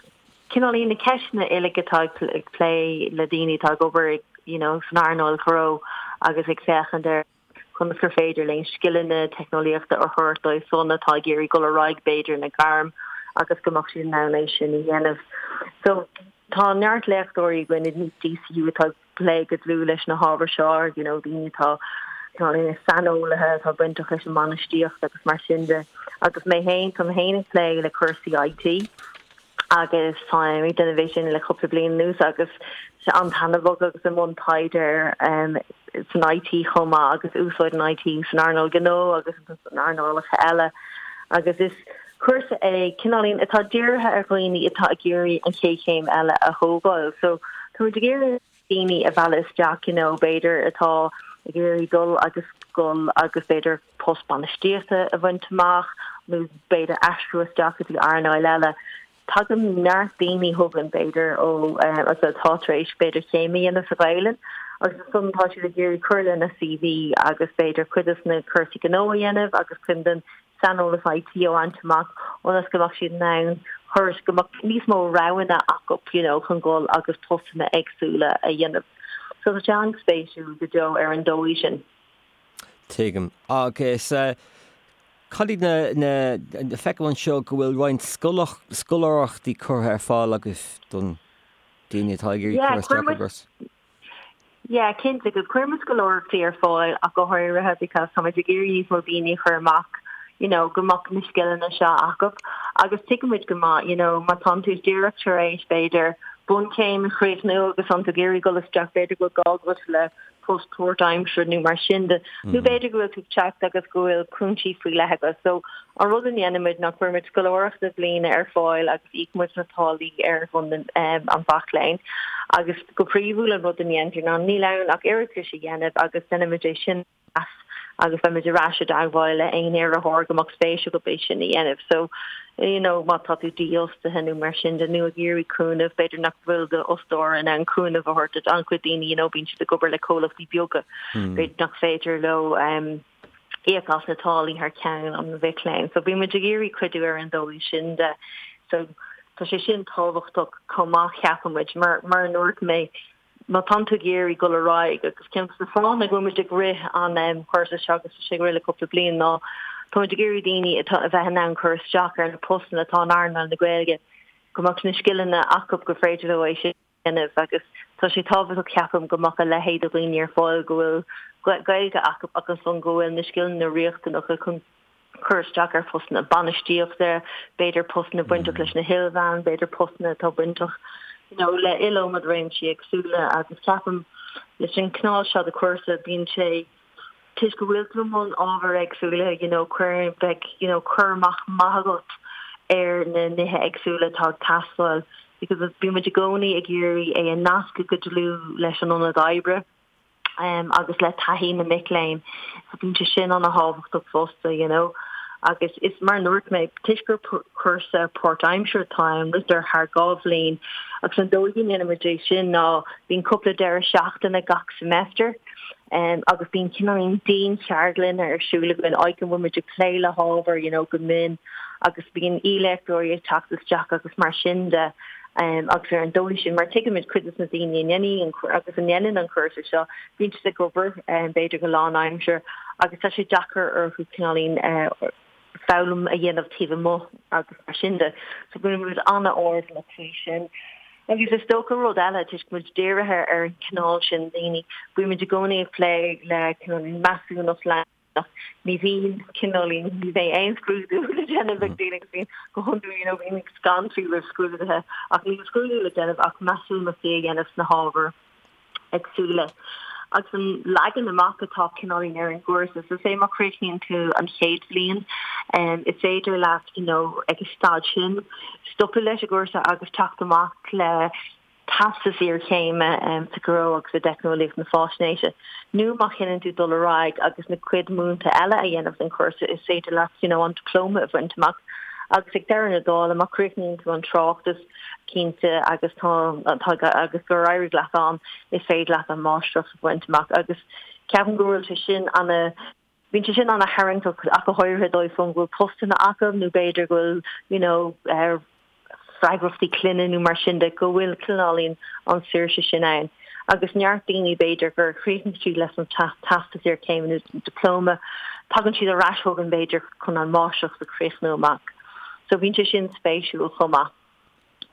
cineál na ceisteanna uilig atá ag plé le daoine atá ag obair you know san earnáil ghnó agus ag féachaint ar conas gur féidir linn scileanna teicneolaíochta a thabhairt dóibh san atá ag iarraidh dul ar aghaidh b'fhéidir ina ngairm agus go mbeadh siad in ann é sin a dhéanamh. So tá neart léachtóirí againn in DCU atá ag plé go dlúth leis na hábhair seo, you know daoine atá ina saineolaithe atá bainteach leis an mbainistíocht agus mar sin de. Agus mé féin, tá mé féin ag plé le cúrsaí IT agus táim ag déanamh é sin le cúpla bliain anuas agus sé an-taitneamhach agus i mbun taighde san IT chomh maith agus úsáid an IT san earnáil gnó agus san earnálacha eile agus is cúrsa é cineáilín atá dírithe ar dhaoine atá ag iarraidh an chéad chéim eile a thógáil. So táimid ag iarraidh daoine a mhealladh isteach you know b'fhéidir atá ag iarraidh dul agus dul agus b'fhéidir post bainistíochta a bhaint amach nó b'fhéidir aistriú isteach go dtí earnáil eile. Tagann neart daoine chugainn b'fhéidir ó atá tar éis b'fhéidir céim a dhéanamh sa Ghaelainn agus ansan tá siad ag iarraidh cur lena CV agus b'fhéidir cuid des na cúrsaí gnó a dhéanamh agus cuid den saineolas IT a bhaint amach ionas go mbeadh siad in ann cur go mbeadh níos mó roghanna acu you know chun dul agus postanna éagsúla a dhéanamh. So tá sé an-spéisiúil go deo ar an dóigh sin. Tuigim. Agus cad iad na, na, feicim anseo go bhfuil roinnt scoláireachtaí curtha ar fáil agaibh don daoine atá ag iarraidh cur isteach ar an gcúrsa. Yeah, cinnte, agus cuireann muid scoláireachtaí ar fáil ach go háirithe because táimid ag iarraidh níos mó daoine a chur amach, you know, go mbeadh na scileanna seo acu agus tuigimid go maith, you know, má tánn tú díreach tar éis b'fhéidir bunchéim a chríochnú agus tánn tú ag iarraidh dul isteach b'fhéidir go bhfuil gá agat le post páirtaimseartha nó mar sin de, nó b'fhéidir go bhfuil tú ag teacht agus go bhfuil cúinsí faoi leith agat. So, an rud a dhéanaimid ná cuirimid scoláireacht bliana ar fáil agus íocaimid na táillí ar son an mhac léinn. Agus go príomhúil an rud a dhéantar ná níl ann ach iarratas a dhéanamh agus déanaimid é sin a mheas agus beimid ar ais i dteagmháil le aon iarrthóir go mbeadh spéis acu é sin a dhéanamh. So, you know, má tá tú dífhostaithe nó mar sin de nó ag iarraidh cúnamh, b'fhéidir nach bhfuil d'fhostóir in ann cúnamh a thabhairt duit. An-chuid daoine, you know, bíonn siad ag obair le comhlachtaí beaga, b'fhéidir nach féidir leo um, íoc as na táillí thar ceann an mhic léinn. So bíonn muid ag iarraidh cuidiú ar an dóigh sin de. So tá sé sin tábhachtach chomh maith ceapaimid mar mar a dúirt mé má tánn tú ag iarraidh dul ar aghaidh, agus ceann de na fáthanna go bhfuil muid ag rith an chúrsa seo agus tá sé ag rith le cúpla bliain ná tá muid ag iarraidh daoine atá a bheith in ann cur isteach ar na postanna atá in earnáil na Gaeilge, go mbeadh na scileanna acu gur féidir leo é sin a dhéanamh agus tá sé tábhachtach ceapaim go mbeadh a leithéid de dhaoine ar fáil go bhfuil Gaeilge acu ach ansan go bhfuil na scileanna riachtanacha chun cur isteach ar phostanna bainistíochta, b'fhéidir postanna bainteach leis na hilmheáin, b'fhéidir postanna atá bainteach you know le iliomad réimsí éagsúla agus ceapaim leis an cineál seo de chúrsa bíonn sé toisc go bhfuil tú i mbun ábhair éagsúla you know cuireann beidh you know cur amach maith agat ar na nithe éagsúla atá ag teastáil because bíonn muid i gcónaí ag iarraidh é a nascadh go dlúth leis an ionad oibre. agus le taithí na mic léinn. So bíonn sé sin ana-thábhachtach fosta, you know. Agus is mar a dúirt mé, toisc gur cúrsa páirtaimseartha atá ann, ritear thar 2 bhliain agus an dóigh a ndéanaimid é sin ná bíonn cúpla deireadh seachtaine gach semester agus bíonn cineáilín diancheardlanna ar siúl againn, áit go bhfuil muid ag plé le hábhar, you know, go mion agus bíonn aoi-léachtóirí ag teacht isteach agus mar sin de. Agus ar an dóigh sin, mar tuigimid cuid de na daoine a ndéanfaidh agus a ndéanann an cúrsa seo, bíonn siad ag obair, b'fhéidir go lánaimseartha, agus tá sé deacair orthu cineáilín foghlaim a dhéanamh taobh amuigh agus mar sin de. So bíonn muid an-airdeallach faoi sin. Agus is dócha rud eile, toisc muid dírithe ar an chineál sin daoine, bíonn muid i gcónaí ag plé le cineáilín measúnacht leanúnach, Ní bhíonn cineáilín, ní bheidh aon scrúdú le déanamh ag daoine agus bíonn go hiondúil you know bíonn scanraithe roimh scrúduithe ach níl scrúdú le déanamh ach measúnachtaí a dhéanamh sna hábhair éagsúla. Agus an leagan amach atá cineáilín ar an gcúrsa, so say má chríochnaíonn tú an chéad bhliain, is féidir leat you know ag an staid sin stopadh leis an gcúrsa agus teacht amach le teastas iarchéime sa ghnó agus i dteicneolaíocht na faisnéise, nó má chinneann tú dul ar aghaidh agus na cuid múinte eile a dhéanamh den chúrsa, is féidir leat you know an dioplóma a bhaint amach. Agus ag deireadh na dála, má chríochnaíonn tú an tráchtas, cinnte, agus tá agus gur éirigh leat ann, is féidir leat an máistreacht a bhaint amach. Agus ceapaim go bhfuil sé sin ana. Bíonn sé sin ana-tharraingteach ach go háirithe dóibh san go bhfuil postanna acu nó b'fhéidir go bhfuil you know freagrachtaí clainne nó mar sin de, go bhfuil cineáilín an saoirse sin ann. Agus neart daoine b'fhéidir gur chríochnaigh siad leis an teastas iarchéime nó dioplóma, tagann siad ar ais chugainn b'fhéidir chun an máistreacht a chríochnú amach. So bíonn sé sin spéisiúil chomh maith.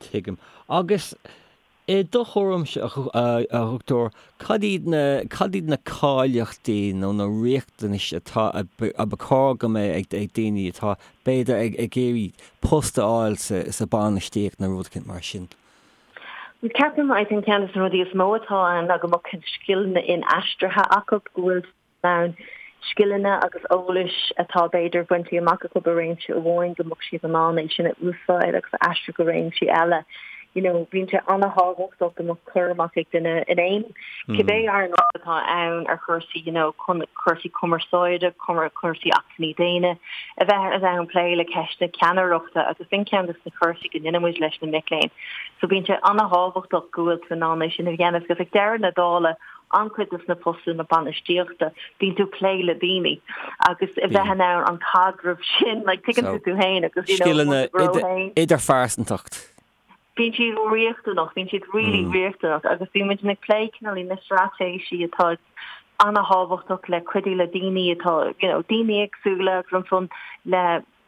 Tuigim. Agus I do thuairimse, a Dhochtúir, cad iad na, cad iad na cáilíochtaí nó na riachtanais atá, a ba chóir go mbeadh ag, ag daoine atá, b'fhéidir, ag, ag iarraidh post a fháil sa, sa bainistíocht nó rud éicint mar sin? Ceapaim, I think ceann de na rudaí is mó atá ann ná go mbeadh scileanna inaistrithe acu, go bhfuil ann scileanna agus eolais atá b'fhéidir bainte amach acu i réimse amháin go mbeadh siad in ann é sin a úsáid agus a aistriú go réimsí eile. You know, bíonn sé an-thábhachtach go mbeadh cur amach ag duine in aon, cibé earnáil atá ann ar chúrsaí, you know, cúrsaí cumarsáide, cúrsaí acmhainní daonna, a bheith in ann plé le ceisteanna ceannaireachta agus sin ceann de na cúrsaí go ndéanann muid leis na mic léinn. So bíonn sé an-thábhachtach go bhfuil tú in ann é sin a dhéanamh agus ag deireadh na dála, an-chuid de na postanna bainistíochta, bíonn tú ag plé le daoine agus a bheith in ann an caidreamh sin, like, tuigeann tú tú féin agus, you know, Scileanna idirphearsantacht. Bíonn siad riachtanach, bíonn siad really riachtanach agus bíonn muid ag plé cineál na straitéisí atá an-thábhachtach le cuidiú le daoine atá, you know, daoine éagsúla agus ansan le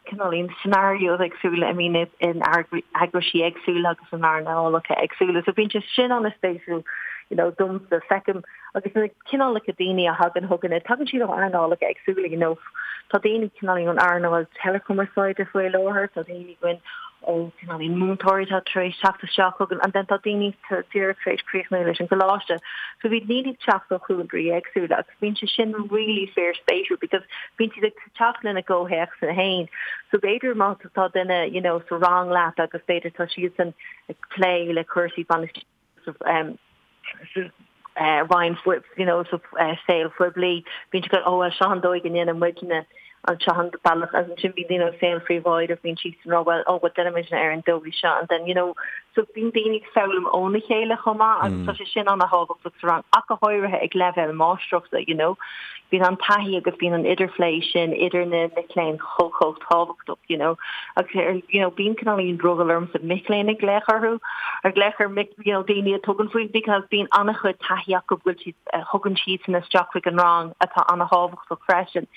cineál scenarios éagsúla I mean in eagraisí éagsúla agus in earnálacha éagsúla. So bíonn sé sin an-spéisiúil you know domsa feicim agus na cineálacha daoine a thagann chugainn tagann siad ó earnálacha éagsúla you know tá daoine cineál ón earnáil teileachumarsáide faoi láthair, tá daoine againn ó cineál múinteoirí atá tar éis teacht isteach chugainn and then tá daoine díreach tar éis críochnú leis an gcoláiste. So bíonn daoine ag teacht ó chúlraí éagsúla agus bíonn sé sin really fíorspéisiúil because bíonn siad ag teacht lena gcomhthéacsanna féin. So b'fhéidir má tá duine you know sa rang leat agus b'fhéidir tá siadsan ag plé le cúrsaí bainistíochta um, sa uh, roinn you know sa uh, saol phoiblí bíonn siad oh well seo an dóigh a ndéanann muidne an seo an bealach agus ansin bíonn daoine ó saol phríobháideach bíonn siadsan ag rá well oh well déanann muidne ar an dóigh seo and then you know so bíonn daoine ag foghlaim óna chéile chomh maith agus tá sé sin an-thábhachtach sa rang ach go háirithe ag leibhéal máistreachta you know Bíonn an taithí agus bíonn an idirphlé sin idir na mic léinn chomh chomh tábhachtach, you know. Agus ar, you know, bíonn cineáilín drogall ormsa mic léinn a ghlaoch orthu, a ghlaoch ar mic, you know, daoine a tugann faoi because bíonn an-chuid taithí acu go bhfuil siad, a thugann siadsan isteach chuig an rang atá an-thábhachtach freisin.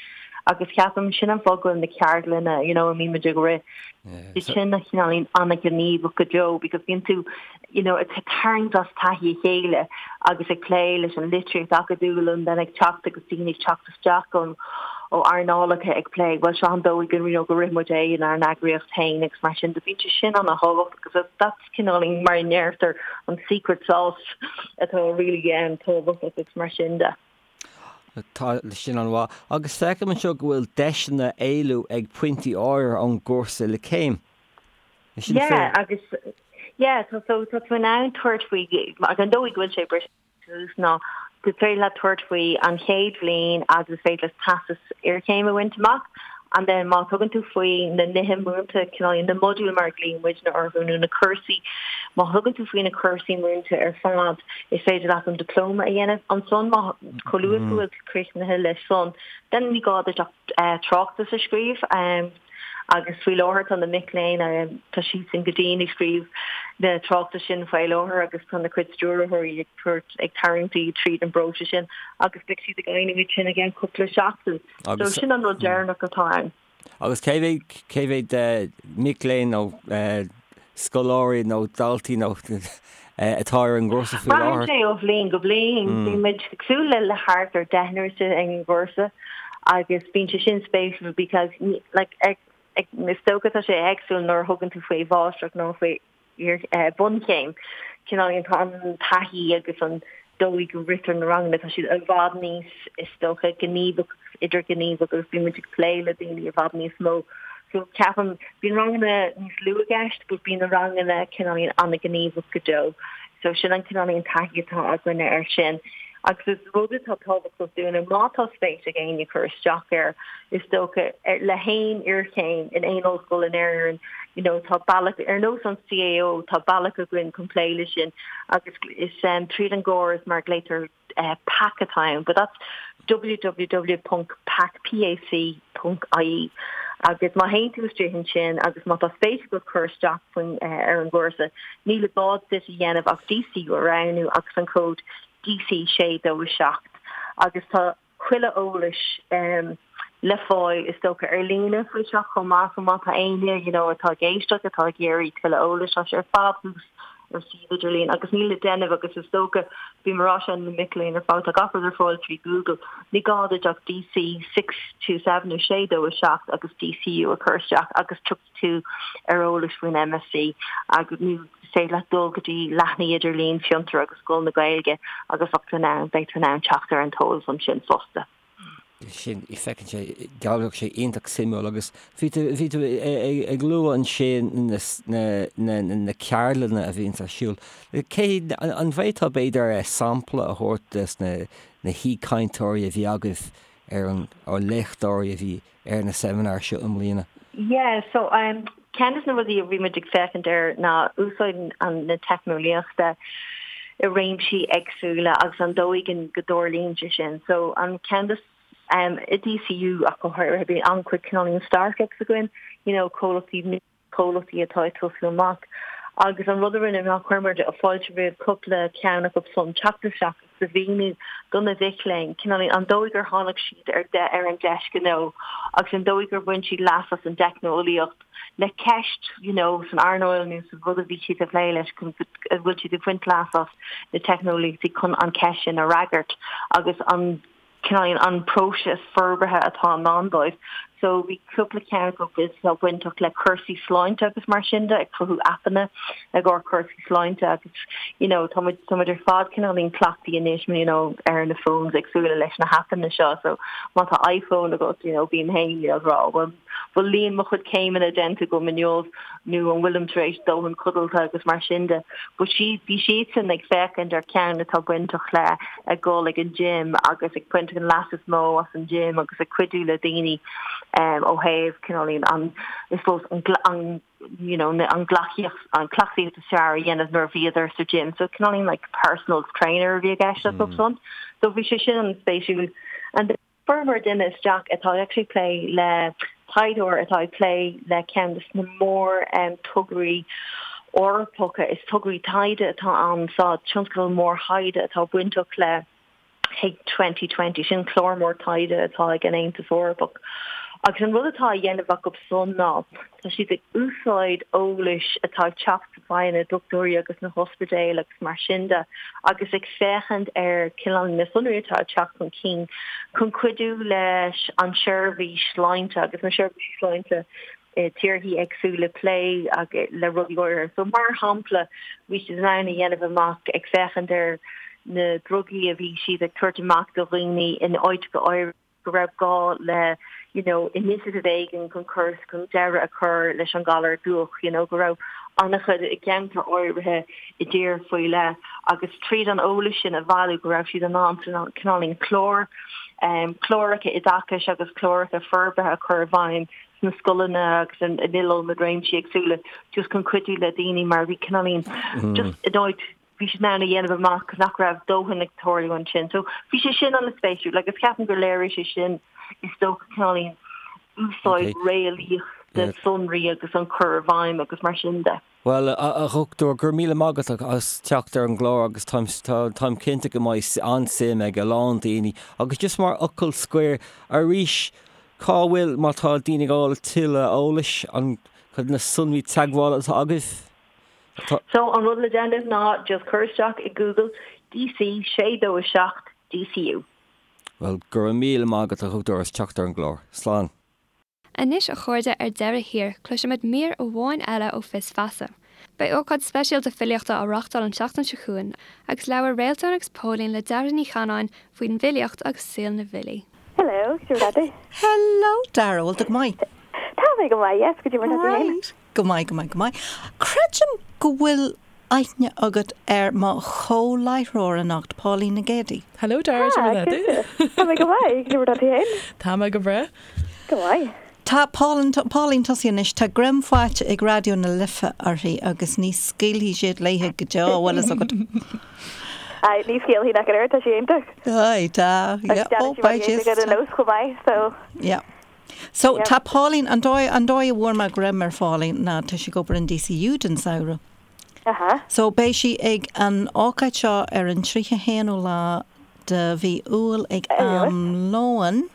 Agus ceapaim sin an fáth go bhfuil na ceardlanna, you know, a mbíonn muid ag rith, iad sin a chineáilín an-ghníomhach go deo because bíonn tú, you know, ag tarraingt as taithí a chéile agus ag plé leis an litríocht acadúil and then ag teacht agus daoine ag teacht isteach ón ó earnálacha ag plé, bhuel seo an dóigh go you know, go rith muid é inár n-eagraíocht féin agus mar sin de bíonn sé sin an-thábhachtach agus that's cineáilín mar a ndeirtear an secret sauce atá really um, tábhachtach agus mar sin de. Tá sin an-mhaith. Agus feicim anseo go bhfuil deiseanna éalú ag pointí áirithe ón gcúrsa le céim. Is sin Yeah, agus yeah, so so tá tú in ann tabhairt faoi agus an dóigh go bhfuil sé briste suas ná go féidir leat tabhairt faoi an chéad bhliain agus is féidir leat teastas iarchéime a bhaint amach and then má tugann tú faoi na nithe múinte cineál na modúil mar a ghlaonn muidne orthu nó na cúrsaí má thugann tú faoi na cúrsaí múinte ar fad is féidir leat an diplóma a dhéanamh ansan má chomh luath go bhfuil tú críochnaithe leis san then ní gá duit ach tráchtas a scríobh. Agus faoi láthair tá na mic léinn, tá siadsan go dian ag scríobh na tráchtais sin faoi láthair agus tá na cuid stiúrthóirí ag tabhairt, ag tarraingt iad tríd an bpróiseas sin agus beidh siad ag éirí iad sin i gceann cúpla seachtain. So sin an rud deireanach atá ann. Agus cé mhéad, cé mhéad mic léinn nó scoláirí nó daltaí nó atá ar an gcúrsa faoi láthair? Braitheann sé ó bhliain go bliain. Bíonn muid ag súil le le thart ar deichniúr ar an gcúrsa agus bíonn sé sin spéisiúil because like ag ag is dócha tá sé éagsúil nuair a thugann tú faoi mháistreacht nó faoi bunchéim. Cineál tá an taithí agus an dóigh go ritear na ranganna, tá siad i bhfad níos, is dócha, gníomhach agus idirghníomhach agus bíonn muid ag plé le daoine i bhfad níos mó. So ceapaim, bíonn ranganna níos lú i gceist but bíonn na ranganna cineáilín an-ghníomhach go deo. So sin an cineáilín taithí atá againne air sin. Agus is rud atá tábhachtach dúinne, má tá spéis ag éinne cur isteach air, is dócha, le haon iarchéim in aon ollscoil in Éirinn, you know, tá bealach, ar nós an CAO, tá bealach againn chun plé leis sin agus is tríd an gcóras mar a ghlaotar PAC atá ann, but that's www.pac, P-A-C, .ie agus má théann tú istigh ansin agus má tá spéis agat cur isteach faoin ar an gcúrsa, níl i gá duit a dhéanamh ach DCU a roghnú agus an cód DC627 agus tá chuile eolais le fáil is dócha ar líne faoi seo chomh maith so má tá éinne you know atá ag éisteacht atá ag iarraidh tuilleadh eolais tá sé ar fad thuas ar suíomh idirlín agus níl le déanamh agus is dócha bím ag rá sin le mic léinn ar fad tá gach rud ar fáil trí Google ní gá duit ach DC 627 nó 627 agus DCU a chur isteach agus tiocfaidh tú ar eolas faoin MSc agus nó is féidir leat dul go dtí leathanaigh idirlín Fiontar agus Scoil na Gaeilge agus bheadh tú in ann, beidh tú in ann teacht ar an t-eolas ansin fosta. Sin, feiceann sé, dealraíonn sé iontach suimiúil agus bhí tú, bhí tú ag lua ansin na, na, na ceardlanna a bhíonns ar siúl. Cé, an bhféadfá b'fhéidir sampla a thabhairt des na, na haoichainteoirí a bhí agaibh ar an, nó léachtóirí a bhí ar na seimineáir seo i mbliana? Yeah, so um, ceann de na rudaí a bhí muid ag féachaint air ná úsáid an, na teicneolaíochta i réimsí éagsúla agus an dóigh go dtarlaíonn sé sin. So an ceann de um, i DCU ach go háirithe bíonn an-chuid cineáilín startups againn, you know, comhlachtaí comhlachtaí atá ag tosú amach. Agus an rud a rinne ná chuir muid fáilte roimh cúpla ceann acu san teacht isteach agus a mhíniú do na mhic léinn cineáilín an dóigh gur tháinig siad ar de ar an deis gnó agus an dóigh gur bhain siad leas as an dteicneolaíocht le ceist you know san earnáil nó sa rud a bhí siad ag plé leis go bhfuil siad ag baint leas as na teicneolaíochtaí chun an cheist sin a fhreagairt agus an cineáilín an próiseas forbartha atá i ndán dóibh. So bhí cúpla ceann acu atá bainteach le cúrsaí sláinte agus mar sin de, ag cruthú aipeanna i gcomhair cúrsaí sláinte agus you know tá muid tá muid ar fad cineáilín cleachtaithe anois you know ar na phones éagsúla leis na haipeanna seo so má tá iPhone agat you know bím féin you know ag rá bhfuil bhfuil líon mo chuid céimeanna déanta agam inniu nó an bhfuilim tar éis dóthain codlata agus mar sin de. But siad, bhí siadsan ag féachaint ar ceann atá bainteach le ag dul ag an gym agus ag baint an leas is mó as an gym agus ag cuidiú le daoine ó thaobh cineáilín an, I suppose, an, an, you know, an gcleachtaíocht, an cleachtaíocht is fearr a dhéanamh nuair a bhíodar sa gym. So cineáilín like personal trainer a bhí i gceist acu san. So bhí sé sin an-spéisiúil. And Fuaireamar duine isteach atá actually ag plé le taighdeoir atá ag plé le ceann de na mór tograí Eorpacha, is tograí taighde atá ann sa tionscadal mór thaighde atá bainteach le H2020, sin clár mór taighde atá ag an Aontas Eorpach. Agus an rud atá á dhéanamh acu san ná tá siad ag úsáid eolais atá ag teacht faoi na dochtúirí agus na hospidéil agus mar sin de agus ag féachaint ar cineál na sonraí atá ag teacht chun cinn chun cuidiú leis an seirbhís sláinte agus na seirbhísí sláinte i tíorthaí éagsúla plé le rudaí áirithe. So mar shampla bhí siad in ann a dhéanamh amach ag féachaint ar na drugaí a bhí siad ag tabhairt amach do dhaoine in áiteacha áirithe, go raibh gá le you know initiative éigin chun cur chun deireadh a chur leis an galar dubhach, you know go raibh an-chuid i gceantar áirithe i dtír faoi leith agus tríd an eolas sin a bhailiú go raibh siad in ann cineáilín clár um, cláracha oideachais agus cláracha forbartha a chur i bhfeidhm sna scoileanna agus in iliomad réimsí éagsúla just chun cuidiú le daoine mar bhí cineáilín just in áit bhí siad in ann a dhéanamh amach nach raibh dóthain ag tarlú ansin. So bhí sé sin an-spéisiúil agus ceapaim gur léirigh sé sin is dócha cineáilín úsáid réalaíoch de sonraí agus an cur i bhfeidhm agus mar sin de. Bhuel, a Dhochtúir, go raibh míle maith agat as teacht ar an gclár agus táim, táim cinnte go mbeidh an-suim ag a lán daoine. Agus just mar fhocal scoir, arís, cá bhfuil, má tá daoine ag fáil tuilleadh eolais, an, cad na sonraí teagmhála atá agaibh? So an rud le déanamh ná just cur isteach i Google DC 627 DCU. Bhuel, go raibh míle maith agat a Dhochtúir as teacht ar an gclár. Slán. Anois a chairde ar deireadh thiar cloisfimid mír amháin eile ó Fios Feasa. Beidh ócáid speisialta filíochta á reachtáil an tseachtain seo chugainn agus labhair Réaltán agus Póilín le Dara Ní Chanáin faoin bhfilíocht agus saol na bhfilí. Hello, cad é mar atá tú? Hello Dara, bhfuil tú go maith? Tá mé go maith, yes, cad é mar atá tú féin? Right. Go maith, go maith, go maith. Creidim go bhfuil aithne agat ar mo chomh-láithreoir anocht, Pauline Nic Géadaigh. Hello Dara, cad é mar atá tú? Tá mé go maith, cad é mar atá tú féin? Tá mé go breá. Go maith. Tá Pauline, Pauline tosaigh anois, tá greim faighte ag Raidió na Life uirthi agus ní scaoilfidh siad léithe go deo, bhfuil fhios agat. Aye, ní scaoilfidh nach oiread, tá sí iontach. Aye, tá, yeah, oh, beidh sí. Agus déanann sí mar nós chomh maith, so. Yeah. So, tá Pauline, an dóigh, an dóigh a bhfuair mé greim ar Phauline ná tá sí ag obair in DCU don samhradh. Aha. So, beidh sí ag an ócáid seo ar an 31ú lá de mhí Iúil ag am lóin.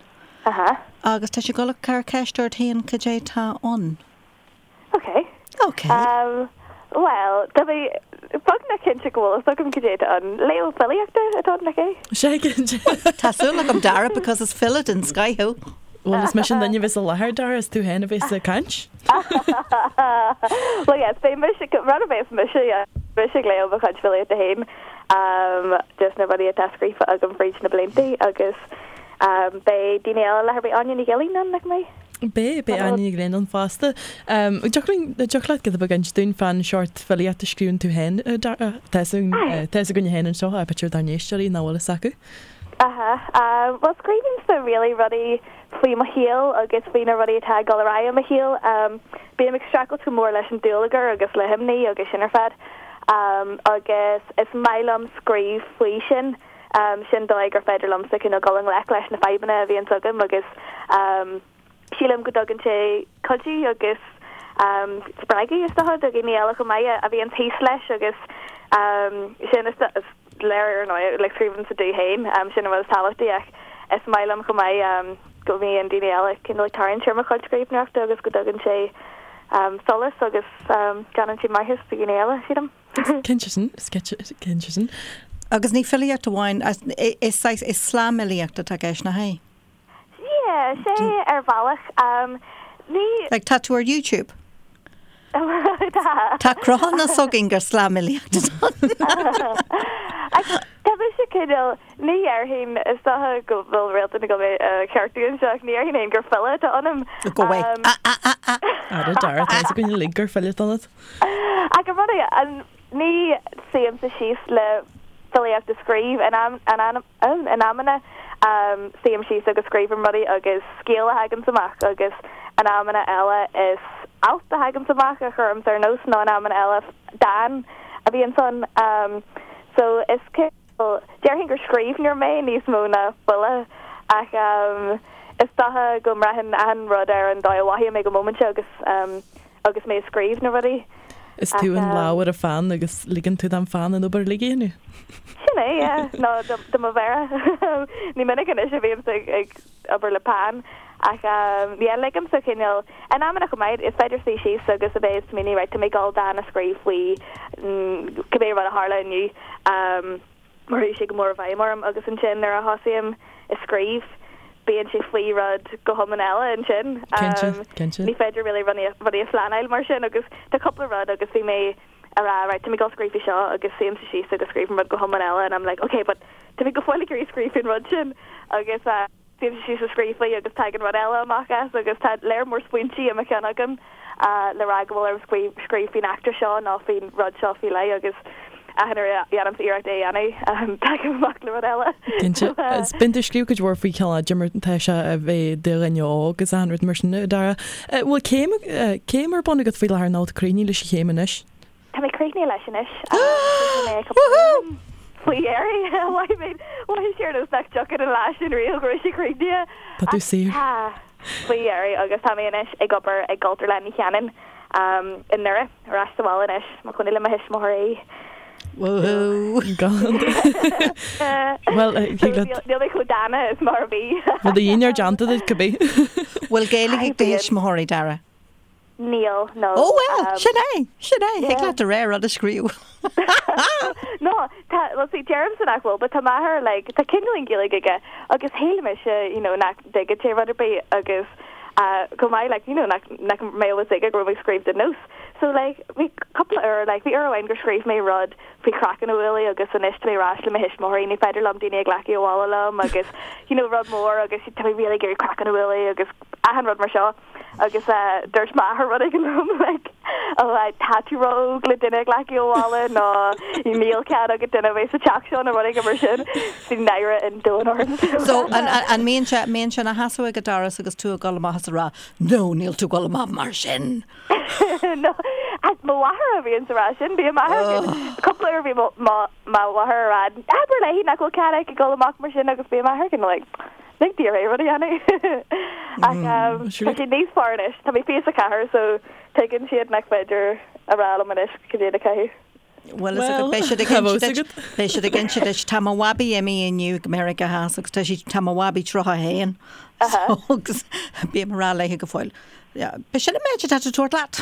Aha. Agus tá sí ag dul a cur ceist ort féin cad é tá ann. Ok. Ok. Um, bhuel, tá mé beagnach cinnte go bhfuil fhios agam cad é atá ann. Léamh filíochta atá ann, nach é? Sé cinnte. Tá súil agam Dara because is file den scoith thú. Bhuel, is mise an duine a bheas i láthair, Dara, is tú féin a bheas ag caint. Well, yes, beidh mise, rud a bheas mise, yeah, mise ag léamh mo chuid filíochta féin, um, just na rudaí atá scríofa agam fríd na blianta agus. Beidh daoine eile i láthair, beidh Áine Ní Ghilín ann, nach mbeidh? Beidh, beidh Áine Ní Ghilín ann fosta. Dtiocfadh leat giota beag a inse dúinn fán seort filíocht a scríobhann tú féin, a Dara? Tá fhios againne féin anseo, ach b'fhéidir dár n-éisteoirí nach bhfuil fhios acu. Aha. Bhuel, scríobhaimse really rudaí faoi mo shaol agus faoi na rudaí atá ag dul ar aghaidh i mo shaol. Bím ag streachailt go mór leis an dúlagar agus le himní agus sin ar fad. Agus is maith liom scríobh faoi sin. Sin dóigh gur féidir liomsa cineál dul i ngleic leis na fadhbanna a bhíonns agam agus sílim go dtugann sé cuidiú agus spreagadh is dócha do dhaoine eile chomh maith a bhíonns thíos leis agus sin is léir ar ndóigh like scríobhaimse domh féin sin an rud is tábhachtaí ach is maith liom chomh maith go mbíonn daoine eile cineál ag tarraingt ar mo chuid scríbhneoireachta agus go dtugann sé solas agus déanann sé maitheas do dhaoine eile sílim. Cinnte sin, cinnte sin. Agus ní filíocht amháin, is saghas, is slamfhilíocht atá i gceist, nach é? Yeah, sé ar bhealach. Ní. Like, tá tú ar YouTube. Tá. Tá cruthúnas againn gur slamfhilíocht atá ann. Tá mise cineál, ní dhéarfainn, is dócha go bhfuil Réaltán ag dul mé a cheartú anseo, ach ní dhéarfainn féin gur file atá ionam. Go way. Ah, ah, ah, ah. Ara, Dara, tá fhios againn uilig gur file atá ionat. Ach an rud é, ní suímse síos le filíocht a scríobh. In amanna suím síos agus scríobhaim rudaí agus scéal a thaganns amach agus in amanna eile is alt a thaganns amach a chuirimse ar nós nó in amanna eile dán a bhíonns ann. So is cineál, déarfainn gur scríbhneoir mé níos mó ná file ach is dócha go mbraitheann achan rud ar an dóigh a mhothaím ag an móimint agus agus mé ag scríobh na rudaí. Is tú an lámh ar an pheann agus ligeann tú don pheann an obair uilig a dhéanamh. Sin é, yeah. Nó do mo mhéara. Ní minic anois a bhímse ag obair le peann ach yeah, ligimse cineál, in amanna chomh maith, is féidir suí síos agus a bheith ag smaoineamh, right, tá mé ag dul dán a scríobh faoi cibé rud a tharla inniu. mar chuaigh sé go mór i bhfeidhm orm agus ansin nuair a thosaím ag scríobh bíonn sé faoi rud go hiomlán eile ansin. Cinnte, cinnte. Ní féidir really rudaí a phleanáil mar sin agus tá cúpla rud agus bhí mé a rá right tá mé ag dul scríobh faoi seo agus suímse síos agus scríobhaim rud go hiomlán eile and I'm like ok but tá mé go fóill ag iarraidh scríobh faoin rud sin agus Suímse síos ag scríobh faoi agus tagann rud eile amach as agus tá léar mór smaointí i mo cheann agam le rá go bhfuil orm scríobh faoin eachtra seo nó faoin rud seo faoi leith agus achan uair a dhéanaimse iarracht é a dhéanamh tagaim amach le rud eile. Cinnte. Bíonn tú ag scríobh cuid mhór faoi cineál cad é mar atá sé a bheith i do dhuine óg agus achan rud mar sin, a Dara. Bhfuil céim, céim ar bun agat faoi láthair nó tú críochnaithe leis an chéim anois? Tá mé críochnaithe leis anois. Chríochnaigh mé cúpla bliain faoi dheireadh. Mhothaigh mé, mhothaigh sé ar nós nach dtiocfadh an lá sin riamh go raibh sé críochnaithe. Tá tú saor. Tá, faoi dheireadh agus tá mé anois ag obair i gCultúrlann Uí Chanainn i nDoire, ar ais sa bhaile anois, mo chónaí le mo thuismitheoirí. Woohoo! Bhuel, thig leat. Níl mé chomh dána is mar a bhí. Bhfuil do dhinnéar déanta duit, cibé. Bhfuil Gaeilge ag do thuismitheoirí, Dara? Níl, no. Ó bhuel, sin é, sin é, thig leat do rogha rud a scríobh. No, tá, well see, deirimse nach bhfuil, but tá m'athair, like, tá cineáilín Gaeilge aige agus shíl mise, you know, nach dtuigeann sé rud ar bith agus uh, chomh maith, like, you know, nach, nach mbeadh fhios aige go raibh mé ag scríobh do Nós. So, like, bhí cúpla uair, like, bhí uair amháin gur scríobh mé rud faoi chraiceann a bhualadh agus anois tá mé ar ais le mo thuismitheoirí, ní féidir liom daoine a ghlacadh abhaile liom agus, you know, rud mór agus tá mé really ag iarraidh craiceann a bhualadh agus achan rud mar seo. Agus dúirt m'athair rud éigin liom like oh tá tú ró-óg le duine a ghlacadh abhaile nó níl cead agat duine a bheith sa teach seo nó rud éigin mar sin. Bhí náire an domhain orm. So an mbíonn sé, mbíonn sé ina sheasamh ag an doras agus tú ag dul amach is ag rá no níl tú ag dul amach mar sin. No, mo mháthair a bhíonn ag rá sin, bíonn m'athair cúpla uair bhí mo mháthair ag rá abair léi nach bhfuil cead aici dul amach mar sin agus bíonn m'athair kind of like Lig di rud a dhéanamh. Ach tá siad níos fearr anois. Tá mé 24 so tuigeann siad nach féidir a rá liom anois cad é le caitheamh. Bhuel, is agat, beidh siad ag inse duit, beidh siad ag inse duit, tá mo bhabaí imithe inniu go Meiriceá Theas agus tá sí, tá mo bhabaí 31 so agus bím ag rá léi go fóill, b'shin an méid atá tú tabhairt leat.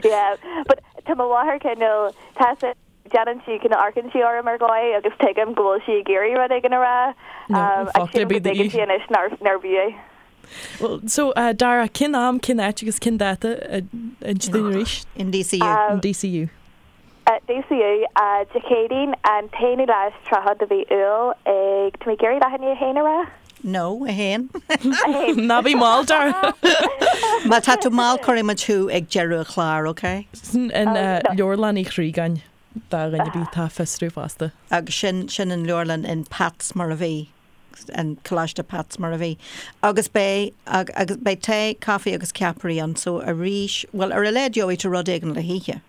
Yeah, but tá mo mháthair cineál, tá sí, Déanann sí, cineál amharcann sí orm ar dhóigh agus tuigim go bhfuil sí ag iarraidh rud éigin a rá ach sílim go dtuigeann sí anois nárbh fhiú é. Well, so, Dara, cén am, cén áit agus cén dáta, inis dúinn arís? In DCU. In DCU. DCU, Dé Céadaoin, an t-aonú lá is 30 de mhí Iúil ag, tá mé ag iarraidh leath i ndiaidh a haon a rá? No, a haon. A haon. Ná bí mall, Dara. Má tá tú mall cuirfidh muid thú ag deireadh an chláir, ok? Sin in Leabharlann Uí Chriagáin do dhuine ar bith atá ag fiosrú fosta. Agus sin, sin an leabharlann in Pats mar a bhí. an Coláiste Pats mar a bhí. Agus beidh, agus beidh tae, caife agus ceapairí ann so arís, bhuel ar a laghad gheobhaidh tú rud éigin le hithe.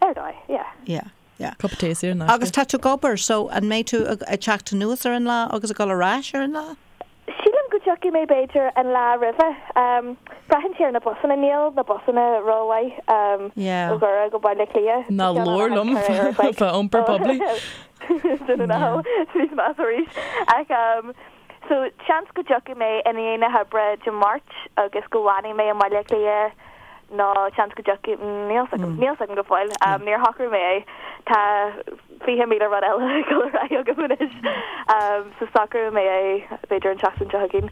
Ar dóigh, yeah. Yeah, yeah. Cup of tae saor in aisce. Agus tá tú ag obair so an mbeidh tú ag teacht anuas ar an lá agus ag dul ar ais ar an lá? Sílim go dtiocfaidh mé b'fhéidir an lá roimhe. Braitheann sé ar na busanna, níl na busanna rómhaith ó Dhoire go Baile Átha Cliath. Ná labhair liom fá iompar poiblí. Dunno now, níos measa arís. Ach so seans go dtiocfaidh mé i ndiaidh na hoibre Dé Máirt agus go bhfanfaidh mé i mBaile Átha Cliath nó seans go dtiocfaidh, níl 's agam, níl 's agam go fóill. Níor shocraigh mé é. Tá 20,000 rud eile ag dul ar aghaidh agam anois. So socróidh mé é b'fhéidir an tseachtain seo chugainn.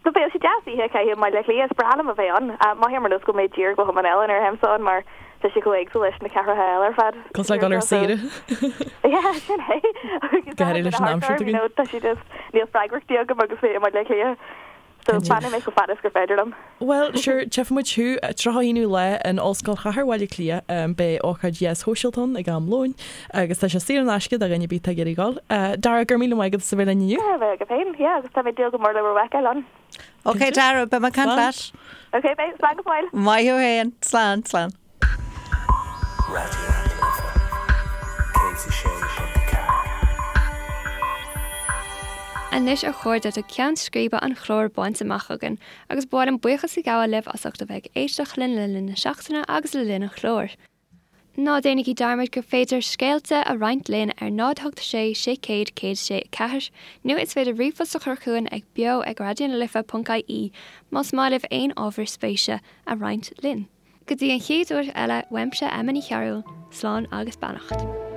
So bheadh sé deas oíche a chaitheamh i mBaile Átha Cliath, is breá liom a bheith ann. Mothaím ar nós go bhfuil mé i dtír go hiomlán eile nuair a théimse ann mar tá sé chomh éagsúil leis na cathracha eile ar fad. Cosúil le dul ar saoire. Yeah, sin é. Agus Go háirithe leis an aimsir you know, tá sé just, níl freagrachtaí agam agus mé i mBaile Átha Cliath. So fanfaidh mé chomh fada is gur féidir liom. Bhuel, sure, tchífidh muid thú 31ú lá in Ollscoil Chathair Bhaile Átha Cliath. Beidh ócáid dheas shóisialta ann ag am lóin agus tá sé saor in aisce do dhuine ar bith atá ag iarraidh dul. Dara, go raibh míle maith agat as a bheith linn inniu. Go raibh maith agat féin, yeah, agus tá mé ag dúil go mór le bhur bhfeiceáil ann. Ok, Dara, beidh mé ag caint leat. Ok, beidh, slán go fóill. Maith thú féin, slán, slán. Raidió na Life 106.4. Anois a chairde tá ceann scríbe an chláir bainte amach againn agus ba mhaith liom buíochas a ghabháil libh as ucht a bheith ag éisteacht linn le linn na seachtaine agus le linn an chláir. Ná déanaigí dearmad gur féidir scéalta a roinnt linn ar 0 8 6 600 106 4 nó is féidir ríomhphost a chur chugainn ag beo ag raidionalife.ie más maith libh aon ábhar spéise a roinnt linn. Go dtí an chéad uair eile, uaimse Emma Ní Chearúil, slán agus beannacht.